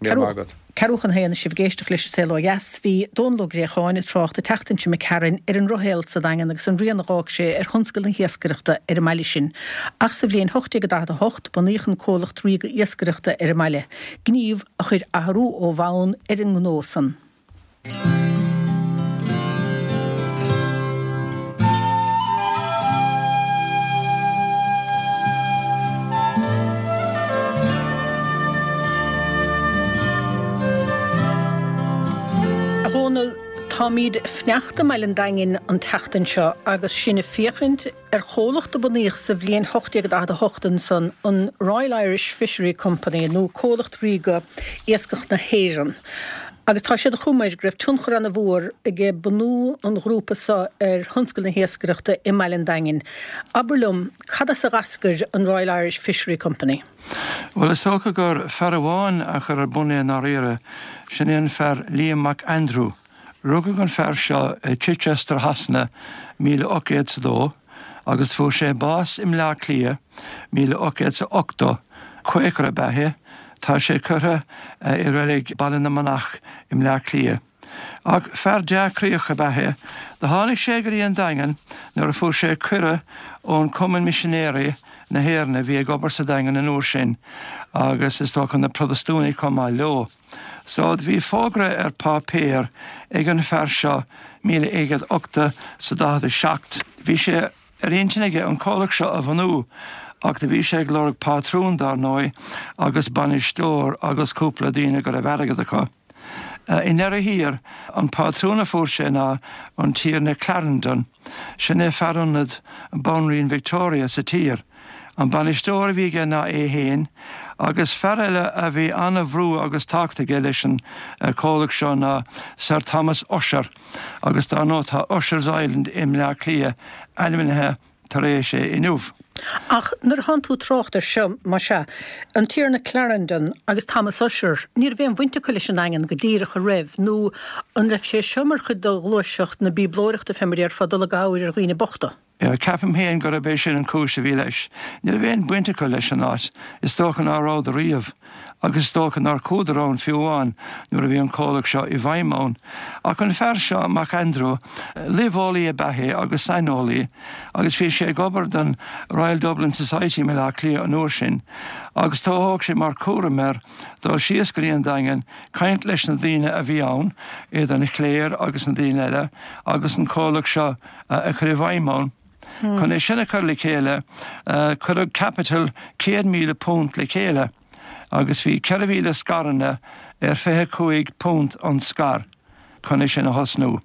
Míle maith agat. Ceathrú chun a haon is sibh ag éisteacht leis An Saol Ó Dheas. Bhí Dónal Ó Gréacháin ag trácht an tseachtain seo imigh tharainn ar an ndrochshaol sa Daingean agus an rian a dh'fhág sé ar thionscal na hiascaireachta ar an mbaile sin. Ach sa bhliain 1848 bunaíodh an Comhlacht Ríoga Iascaireachta ar an mbaile, gníomh a chuir athrú ó bhonn ar an ngnó san. A Dhónaill, táimíd ag fanacht i mbaile an Daingin an tseachtain seo agus sinn ag féachaint ar chomhlacht a bunaíodh sa bhliain 1848 ansan, an Royal Irish Fishery Company, nó Comhlacht Ríoga Iascach na hÉireann. Agus tá sé de chuma air go raibh tionchar ana-mhór aige bunú an ghrúpa so ar thionscal na hiascaireachta i mbaile an Daingin. Abair liom, cad as a dh'eascair an Royal Irish Fishery Company? Bhuel, is dócha gur fear amháin a chuir ar bun é i ndáiríre, sin é an fear Liam Mac Aindriú. Rugadh an fear seo i Chichester Shasana 1802 agus fuair sé bás i mBleá Cliath 1880. Quaker ab ea é. Tá sé curtha i reilig Baile na Manach i mBleá Cliath. Ach fear dea-chroíoch ab ea é. Do tháinig sé go dtí an Daingean nuair a fuair sé cuireadh ón Cumann Misinéirí na hÉireann a bhí ag obair sa Daingean an uair sin agus is dócha na Protastúnaigh chomh maith leo. So do bhí fógra ar páipéar ag an fear seo 1887 's 47. Bhí sé ar intinn aige an comhlacht seo a bhunú ach do bhí sé ag lorg pátrún dár ndóigh agus bainisteoir agus cúpla daoine go raibh airgead acu. I ndeireadh thiar an pátrún a fuair sé ná an Tiarna Clarendon. Sin é fear ionaid Banríon Victoria sa tír. An bainisteoir a bhí aige ná é fhéin, agus fear eile a bhí ana-bhrú agus tábhacht aige leis an comhlacht seo ná Sir Thomas Ussher, agus dár ndóigh tá Usher's Island i mBleá Cliath ainmnithe tar éis é inniu. Ach nuair a thánn tú ag trácht air seo, más ea, an Tiarna Clarendon agus Thomas Ussher, ní raibh aon bhaint acu leis an nDaingean go díreach, an raibh, nó an raibh sé seo mar chuid de ghluaiseacht na bíoblóireachta fé mar a déarfá, dul i gcabhair ar dhaoine bochta? Ceapaim féin gurb é sin an chúis a bhí leis. Ní raibh aon bhaint acu leis an áit. Is dócha ná rabhadar riamh. Agus is dócha nár chuadar ann fiú amháin nuair a bhí an comhlacht seo i bhfeidhm ann. Ach an fear seo, Mac Aindriú, luibheolaí ab ea é agus saineolaí agus bhí sé ag obair don Royal Dublin Society i mBaile Átha Cliath an uair sin agus do thóg sé mar chúram air dul síos go dtí an Daingean, caint leis na daoine a bhí ann, idir an chléir agus na daoine eile, agus an comhlacht seo a chur i bhfeidhm ann. Chun é sin a chur le chéile, cuireadh caipiteal £100,000 le chéile agus bhí 4,000 scaireanna ar £25 an scair chun é sin a thosnú.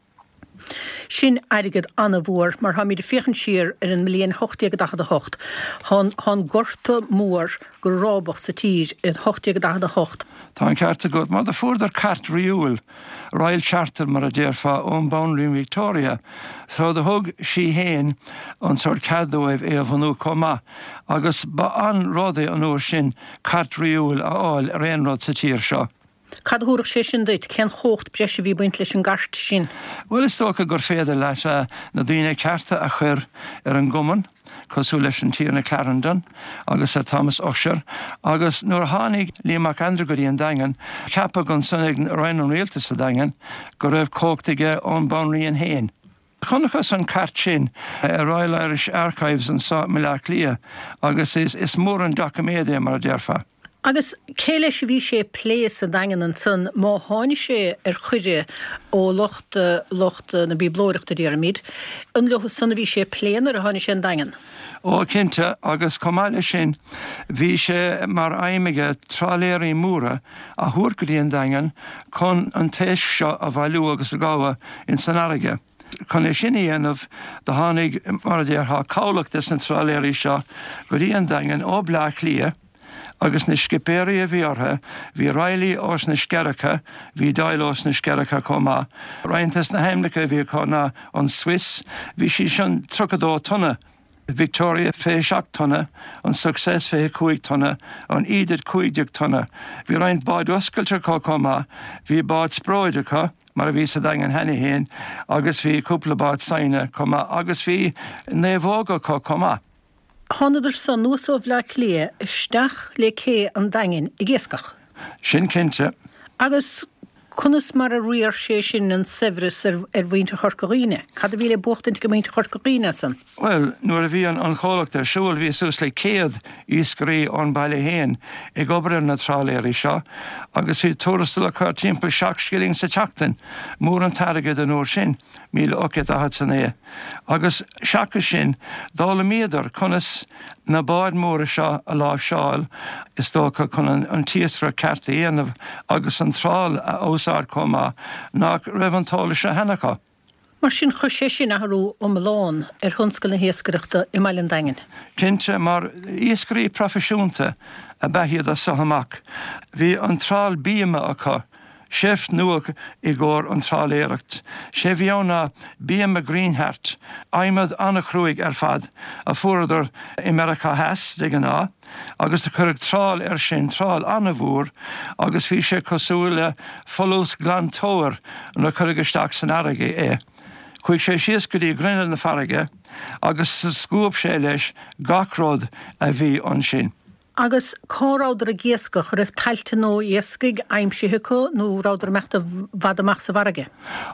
Sin airgead an-mhór, mar táimid ag féachaint siar ar an mbliain 1848. Tá an Gorta Mór go rábach sa tír in 1848. Tá an ceart agat, mar do fuaireadar cairt ríúil, Royal Charter mar a déarfá, ón Banríon Victoria, so do thug sí fhéin an sórt cead dóibh é a bhunú chomh maith, agus ba an-rud é an uair sin cairt ríúil a fháil ar aon rud sa tír seo. Cad a thabharfadh sé sin duit? Cén chumhacht breise a bhí ag baint leis an gcairt sin? Bhuel, is dócha gur féidir leat na daoine cearta a chur ar an gcumann, cosúil leis an Tiarna Clarendon agus Sir Thomas Ussher, agus nuair a tháinig Liam Mac Aindreú go dtí an Daingean, ceapadh ansan ag Roinn an Rialtais sa Daingean go raibh cumhacht aige ón Banríon féin. Chonacthas an cairt sin i Royal Irish Archives anso i mBaile Átha Cliath agus is mór an doiciméad é, mar a déarfá. Agus cé leis a bhí sé ag plé sa Daingean ansan má tháinig sé ar chuireadh ó lucht lucht na bíoblóireachta, déarfaimid, an leo san a bhí sé ag plé nuair a tháinig sé 'on Daingean? Ó, cinnte, agus chomh maith leis sin, bhí sé mar aidhm aige trálaeirí móra a thabhairt go dtí an Daingean chun an t-éisc seo a bhailiú agus a ghabhadh ins an fharraige. Chun é sin a dhéanamh, do tháinig, mar a déarfá, cabhlach des na trálaeirí seo go dtí an Daingean ó Bleá Cliath agus na scipéirí a bhí orthu, bhí Reilly ós na Scearacha, bhí Doyle ós na Scearacha chomh maith. Roinnt des na hainmneacha a bhí acu ná an Swiss, bhí sí sin 32 tonna, Victoria 27 tonna, an Success 25 tonna, an Edith 15 tonna. Bhí roinnt báid oscailte acu chomh maith, bhí bád spróid acu, mar a bhí sa Daingean cheana féin, agus bhí cúpla bád saighne chomh maith, agus bhí naomhóga acu chomh maith. Thánadar san anuas ó Bhleá Cliath isteach le cé an Daingin ag iascach. Sin cinnte. Agus conas mar a riar sé sin an saibhreas ar mhuintir Chorca Dhuibhne? Cad a bhí le buachtaint ag muintir Chorca Dhuibhne as san? Bhuel, nuair a bhí an chomhlacht ar siúl, bhí suas le 100 iascairí ón baile féin ag obair ar na trálaeirí seo agus bhí tuarastal acu timpeall 7 scilling sa tseachtain, mór an t-airgead an uair sin, 1849. Agus seachas sin, d'fhoghlaimíodar conas na báid mhóra seo a láimhseáil, is dócha, chun an t-iascaireacht ceart a dhéanamh agus an trál a úsáid chomh maith, nach raibh an t-eolas seo cheana acu. Mar sin, chuir sé sin athrú iomlán ar thionscal na hiascaireachta i mbaile an Daingin. Cinnte, mar iascairí proifisiúnta ab ea iad as so amach. Bhí an trál bíoma acu, seift nua i gcomhair an trálaeireacht. Sé bhí ann ná bíoma greenheart, adhmad an-chruaidh ar fad, a fuaireadar i Meiriceá Theas, de ghnáth, agus do cuireadh trál air sin, trál an-mhór, agus bhí sé cosúil le folús glantóir nuair a cuireadh isteach san fharraige é. Chuaigh sé síos go dtí grinneall na farraige agus scuab sé leis gach rud a bhí ansin. Agus cá rabhadar ag iascach? Raibh tailte nua iascaigh aimsithe acu nó rabhadar ag imeacht i bhfad amach sa bhfarraige?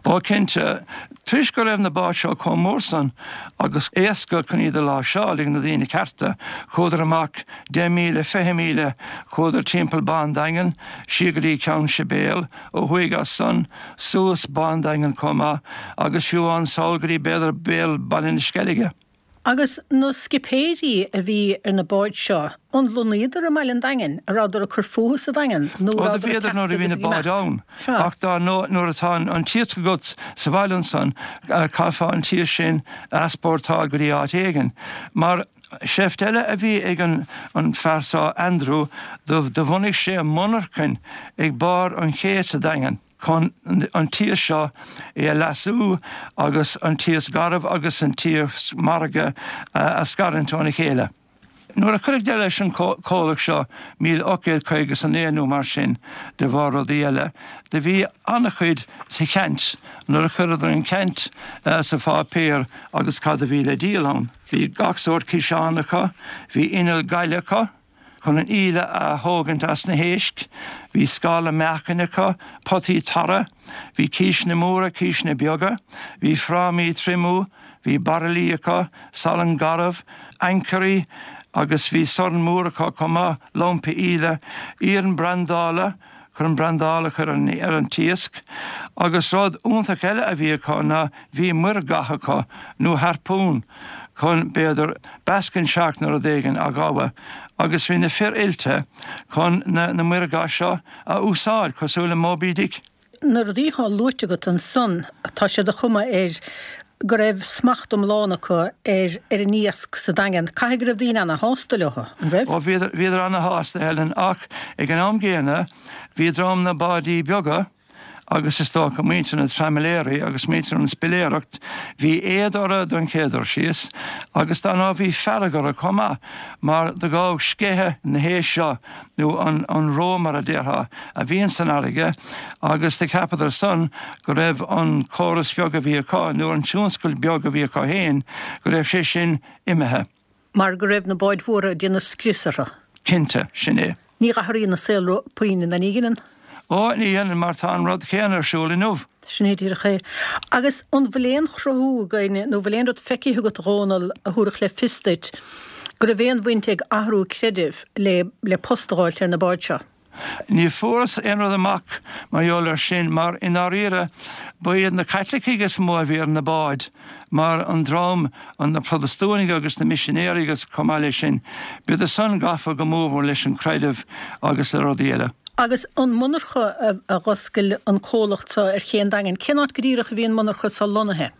Ó cinnte, toisc go raibh na báid seo chomh mór san agus éasca chun iad a láimhseáil ag na daoine cearta, chuadar amach 10 míle, 20 míle, chuadar timpeall Bá an Daingin, siar go dtí Ceann Sibéal, ó thuaidh as san, suas Bá an Daingin chomh maith, agus fiú amháin sall go dtí b'fhéidir béal Baile na Sceilge. Agus na scipéirí a bhí ar na báid seo, an lonnaíodar i mbaile an Daingin, an rabhadar ag cur fúthu sa Daingean nó an rabhadar ag teacht agus ag imeacht? ann. Sea. Ach dár ndóigh nuair atá an t-iasc agat sa bhaile ansan, caithfeá an t-iasc sin a easpórtáil go dtí áit éigin. Mar sheift eile a bhí ag an fear so, Andrew, do bhunaigh sé monarchain ag barr an ché sa Daingean. chun an t-iasc seo é a leasú agus an t-iasc garbh agus an t-iasc margaidh a scarúint óna chéile. Nuair a cuireadh deireadh leis an comhlacht seo, 1859 nó mar sin, de bharr rudaí eile, do bhí an-chuid sa cheant nuair a chuireadar an ceant sa pháipéar agus cad a bhí le díol ann. Bhí gach sórt ciseán acu, bhí inneall gaile acu, Chun an íle a thógaint as na héisc, bhí scála meáchain acu, potaí tarra, bhí císeanna móra, císeanna beaga, bhí frámaí triomú, bhí bairillí acu, salann garbh, ancairí agus bhí sorn mór acu chomh maith, lompa íle, iarann brandála, chun an brandáil a chur ar an t-iasc. Agus rud iontach eile a bhí acu ná bhí muirgha acu, nó harpoon, chun, b'fhéidir, basking shark nó rud éigin a ghabhadh. Agus bhí na fir oilte chun na muirgha seo a úsáid, cosúil le Moby Dick. Na rudaí atá luaite agat ansan, tá sé de chuma air go raibh smacht iomlán acu ar ar an iasc sa Daingean. Caithfidh go raibh daoine ana-shásta leo, an raibh? Ó, bhíodar, bhíodar ana-shásta, Helen, ach ag an am gcéanna bhí dream na báidí beaga, agus is dócha muintir na dtraimiléirí agus muintir an spiléireacht, bhí éad orthu don chéad dul síos agus dar ndóigh bhí fearg orthu chomh maith mar do ghabhadh sceitheadh na héisc seo nó an reo mar a déarfá a bhíonn san fharraige agus do cheapadar san go raibh an córas beag a bhí acu nó an tionscal beag a bhí acu féin go raibh sé sin imithe. Mar go raibh na báid mhóra ag déanamh scrios orthu. Cinnte, sin é. Ní dh'athraíonn an saol puinn, ná ní dheineann? Ó, ní dhéanann, mar tá an rud céanna ar siúl inniu. Sin é díreach é. Agus an bhfuil aon chruthú againn, nó bhfuil aon rud feicthe agat, a Dhónaill, a thabharfadh le fios duit go raibh aon bhaint ag athrú creidimh le le post a dh'fháilt ar na báid seo? Ní fuarthas aon rud amach mar gheall air sin mar i ndáiríre ba iad na Caitlicigh is mó a bhí ar na báid mar an dream, na Protastúnaigh agus na misinéirí agus chomh maith leis sin, bhíodar san gafa go mórmhór leis an creideamh agus le rudaí eile. Agus an monarcha a dh'oscail an comhlacht so ar Ché an Daingin, cén áit go díreach a bhí an monarcha so lonnaithe?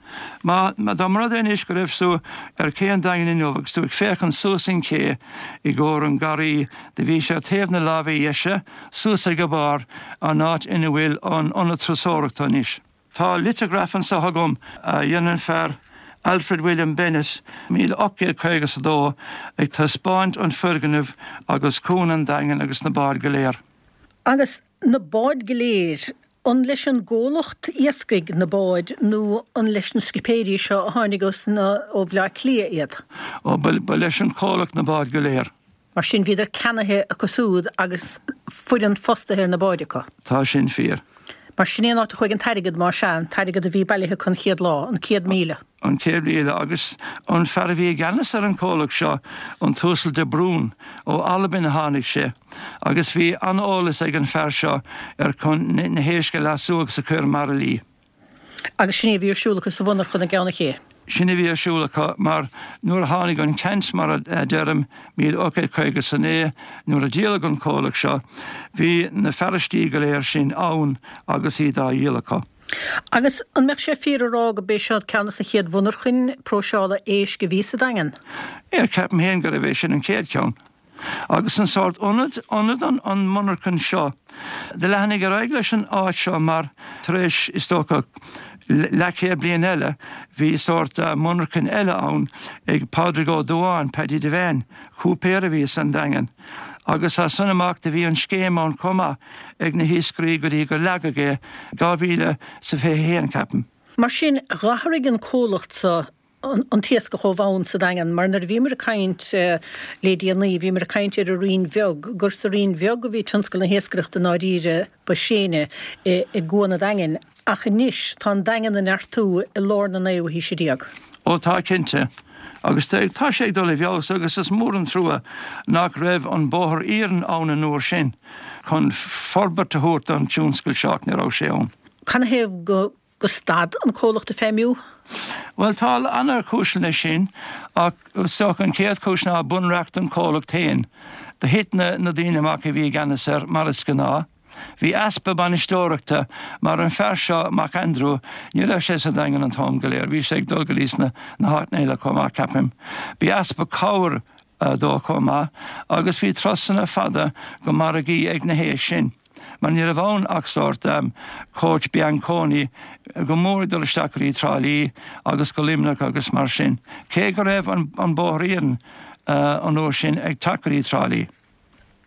Má, dá mba rud é anois go raibh tú ar Ché an Daingin inniu agus tú ag féachaint suas an ché i gcomhair an garraí, do bhí sé ar taobh na láimhe dheise, suas ag a barr, an áit ina bhfuil an ionad turasóireachta anois. Tá liteagraf anso agam a dhein an fear Alfred William Bennett, 1852, ag taispeáint an foirgneamh agus Cuan an Daingin agus na báid go léir. Agus na báid go léir, An leis an gcomhlacht iascaigh na báid nó an leis na scipéirí seo a tháinig ó Bhleá Cliath iad? Ó, ba leis an chomhlacht na báid go léir. Mar sin bhíodar ceannaithe acu siúd agus foireann fostaithe ar na báid acu. Tá sin fíor. Mar sin é an áit a chuaigh an t-airgead, más ea, an t-airgead a bhí bailithe acu an chéad lá, an 100,000. An 100,000 agus an fear a bhí i gceannas ar an chomhlacht seo, an tUasal de Brún, ó Albain a tháinig sé agus bhí an-eolas ag an fear seo ar chun na héisc a leasú agus a chur i mbairillí. Agus sin é a bhí ar siúl acu sa mhonarchan i gCeann an Ché. Sin a bhí ar siúl acu mar nuair a tháinig an ceant, mar a deirim, 1859, nuair a díoladh an comhlacht seo, bhí na fearaistí go léir sin ann agus iad á dhíol acu. Agus an mbeadh sé fíor a rá go b'é seo ceann des na chéad mhonarchain próiseála éisc a bhí sa Daingean? Yeah, ceapaim féin gurbh é sin an chéad cheann. Agus an sórt ionad, ionad an, an monarchan seo. Do leathnaigh ar aghaidh leis an áit seo mar tar éis, is dócha, leathchéad bliain eile, bhí sórt monarchan eile ann ag Pádraig Ó Dubháin, Paddy Devane, cúipéir a bhí san Daingean. Agus as san amach do bhí an scéim ann chomh maith ag na hiascairí go dtí gur leagadh é 2021, ceapaim. Mar sin, dh'athraigh an comhlacht so an t-iascach ó bhonn sa Daingean, mar nuair a bhíomar ag caint le déanaí, bhíomar ag caint ar an Rinn Bheag, gur sa Rinn Bheag a bhí tionscal na hiascaireachta i ndáiríre ba séine i gCuan an Daingin. Ach anois, tá an Daingean ag neartú i lár na naoú haoise déag. Ó tá, cinnte. Agus tá sé ag dul i bhfeabhas agus is mór an trua nach raibh an bóthar iarainn ann an uair sin chun forbairt a thabhairt don tionscal seo ach ní raibh sé ann. Canathaobh go go stad an comhlacht ag feidhmiú? Bhuel tá an-chúiseanna leis sin ach is dócha an chéad chúis ná bunreacht an chomhlacht féin. Do thit na daoine amach a bhí i gceannas air mar is gnáth. Bhí easpa bainisteoireachta mar an fear seo, Mac Aindriú, ní raibh sé sa Daingean an t-am go léir, bhí sé ag dul go dtí sna na háiteanna eile chomh maith, ceapaim. Bhí easpa cabhair dó chomh maith agus bhí turasanna fada go margaí ag na héisc sin mar ní raibh ann ach sórt coach Bianconi go mór ag dul isteach go dtí Trá Lí agus go Luimneach agus mar sin, cé go raibh an bóthar iarainn an uair sin ag teacht go dtí Trá Lí.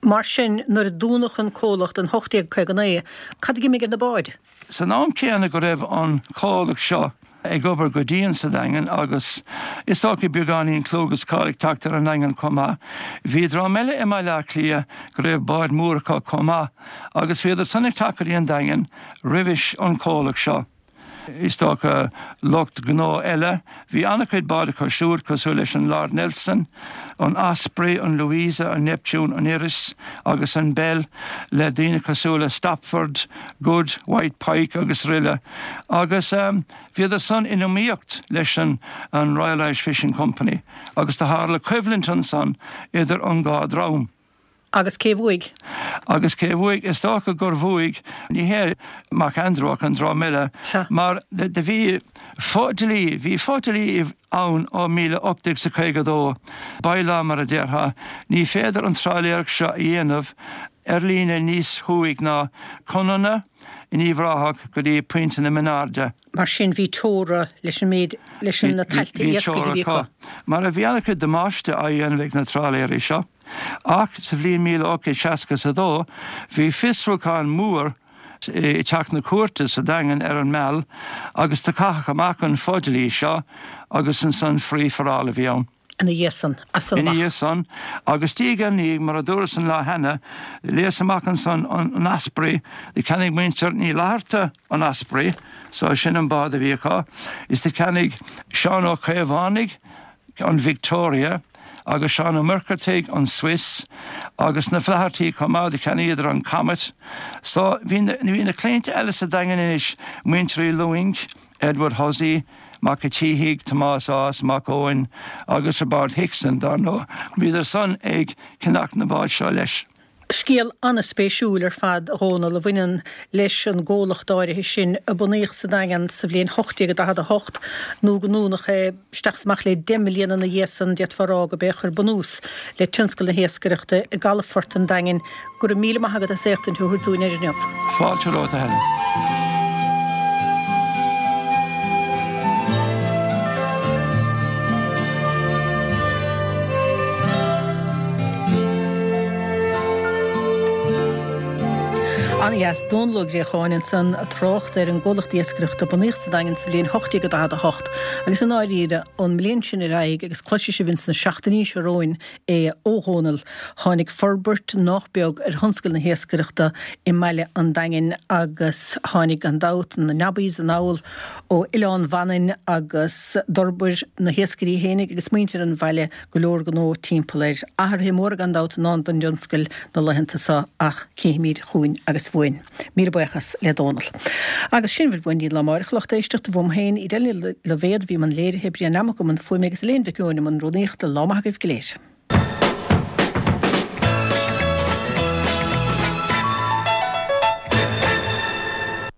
Mar sin, nuair a dúnadh an comhlacht in 1859, cad a d'imigh ar na báid? San am céanna go raibh an comhlacht seo ag obair go dian sa Daingean agus is dócha beagáinín clú agus cáil ag teacht ar an nDaingean chomh maith, bhí dream eile i mBaile Átha Cliath go raibh báid mhóra acu chomh maith agus bhíodar san ag teacht go dtí an Daingean roimhis an comhlacht seo. Is dócha lucht gnó eile. Bhí an-chuid báid acu siúd, cosúil leis an Lord Nelson, an Osprey, an Louisa, an Neptune, an Iris agus an Belle, le daoine cosúil le Stopford, Good, White Pike agus aroile. Agus bhíodar san in iomaíocht leis an Royal Irish Fishing Company agus do tharla coimhlint ansan idir an dhá dhream. Agus cé bhuaigh? Agus cé bhuaigh? Is dócha gur bhuaigh, ní hé Mac Aindriú ach an dream eile, mar do bhí fo-dlí, bhí fo-dlí ann ó 1852, by-law mar a déarfá, ní féidir an trálaeireacht seo a dhéanamh ar líne níos thuaidh ná Conamhna in Uíbh Ráthach go dtí Pointe na Mionairde. Mar sin bhí teora leis an méid, leis na tailte iascaigh a bhí acu. Mar a bhí an-chuid damáiste á dhéanamh ag na trálaeirí seo. Ach sa bhliain 1862 bhí fiosrúchán mór i dteach na cúirte sa Daingean ar an Meal agus do caitheadh amach an fodhlí seo agus ansan free for all a bhí ann. Ina dhiaidh san, as san amach. Ina dhiaidh san, agus diaidh ar ndiaidh, mar a dúras an lá cheana, léas amach ansan an Osprey, do cheannaigh muintir Ní Fhlatharta an Osprey, so sin an bád a bhí acu, is do cheannaigh Seán Ó Caomhánaigh an Victoria, agus Seán Ó Muircheartaigh an Swiss, agus na Flathartaí chomh maith, do cheannaíodar an Comet. So bhí na, bhí na claimhte eile sa Daingean anois, muintir Uí Lúing, Edward Hussey, Mac a' tSíthigh, Tomás Ághas, Mac Eoin agus Roibeárd Hickson, dar ndóigh, bhíodar san ag ceannach na bád seo leis. Scéal an-spéisiúil ar fad, a Dhónaill, a bhaineann leis an gcomhlacht áirithe sin a bunaíodh sa Daingean sa bhliain 1848, nó go ndúnadh é isteach is amach le deich mbliana ina dhiaidh san, d'fhéadfá a rá gurb é a chuir bunús le tionscal na hiascaireachta i gcalafort an Daingin. Go raibh míle maith agat as éachtaint a thabhairt dúinn air inniu. Fáilte romhat, a Helen. An-dheas. Dónall Ó Griacháin ansan ag trácht ar an gcomhlacht iascaireachta a bunaíodh sa Daingean sa bhliain 1848 agus i ndáiríre ón mbliain sin ar aghaidh agus cloisfidh sibh ins na seachtainí seo romhainn é ó Dhónall, tháinig forbairt nách beag ar thionscal na hiascaireachta i mbaile an Daingin agus tháinig, gan dabht, na nobbies anall ó Oileán Mhanainn agus d'fhorbair na hiascairí fhéinig agus muintir an bhaile go leor gnó timpeall air. Athruithe móra gan dabht i ndán don dtionscal na laethanta seo ach cífimid chugainn agus uainn. Míle buíochas le Dónall. Agus sin a bhfuil uainn go dtí an lá amáireach, a lucht éisteachta, uaim féin, Edel Ní Loibhéad, a bhí i mbun léirithe, Brian Nammock i mbun fuaime agus Elaine Mhic Eoin i mbun rúnaíochta. Lá maith agaibh go léir.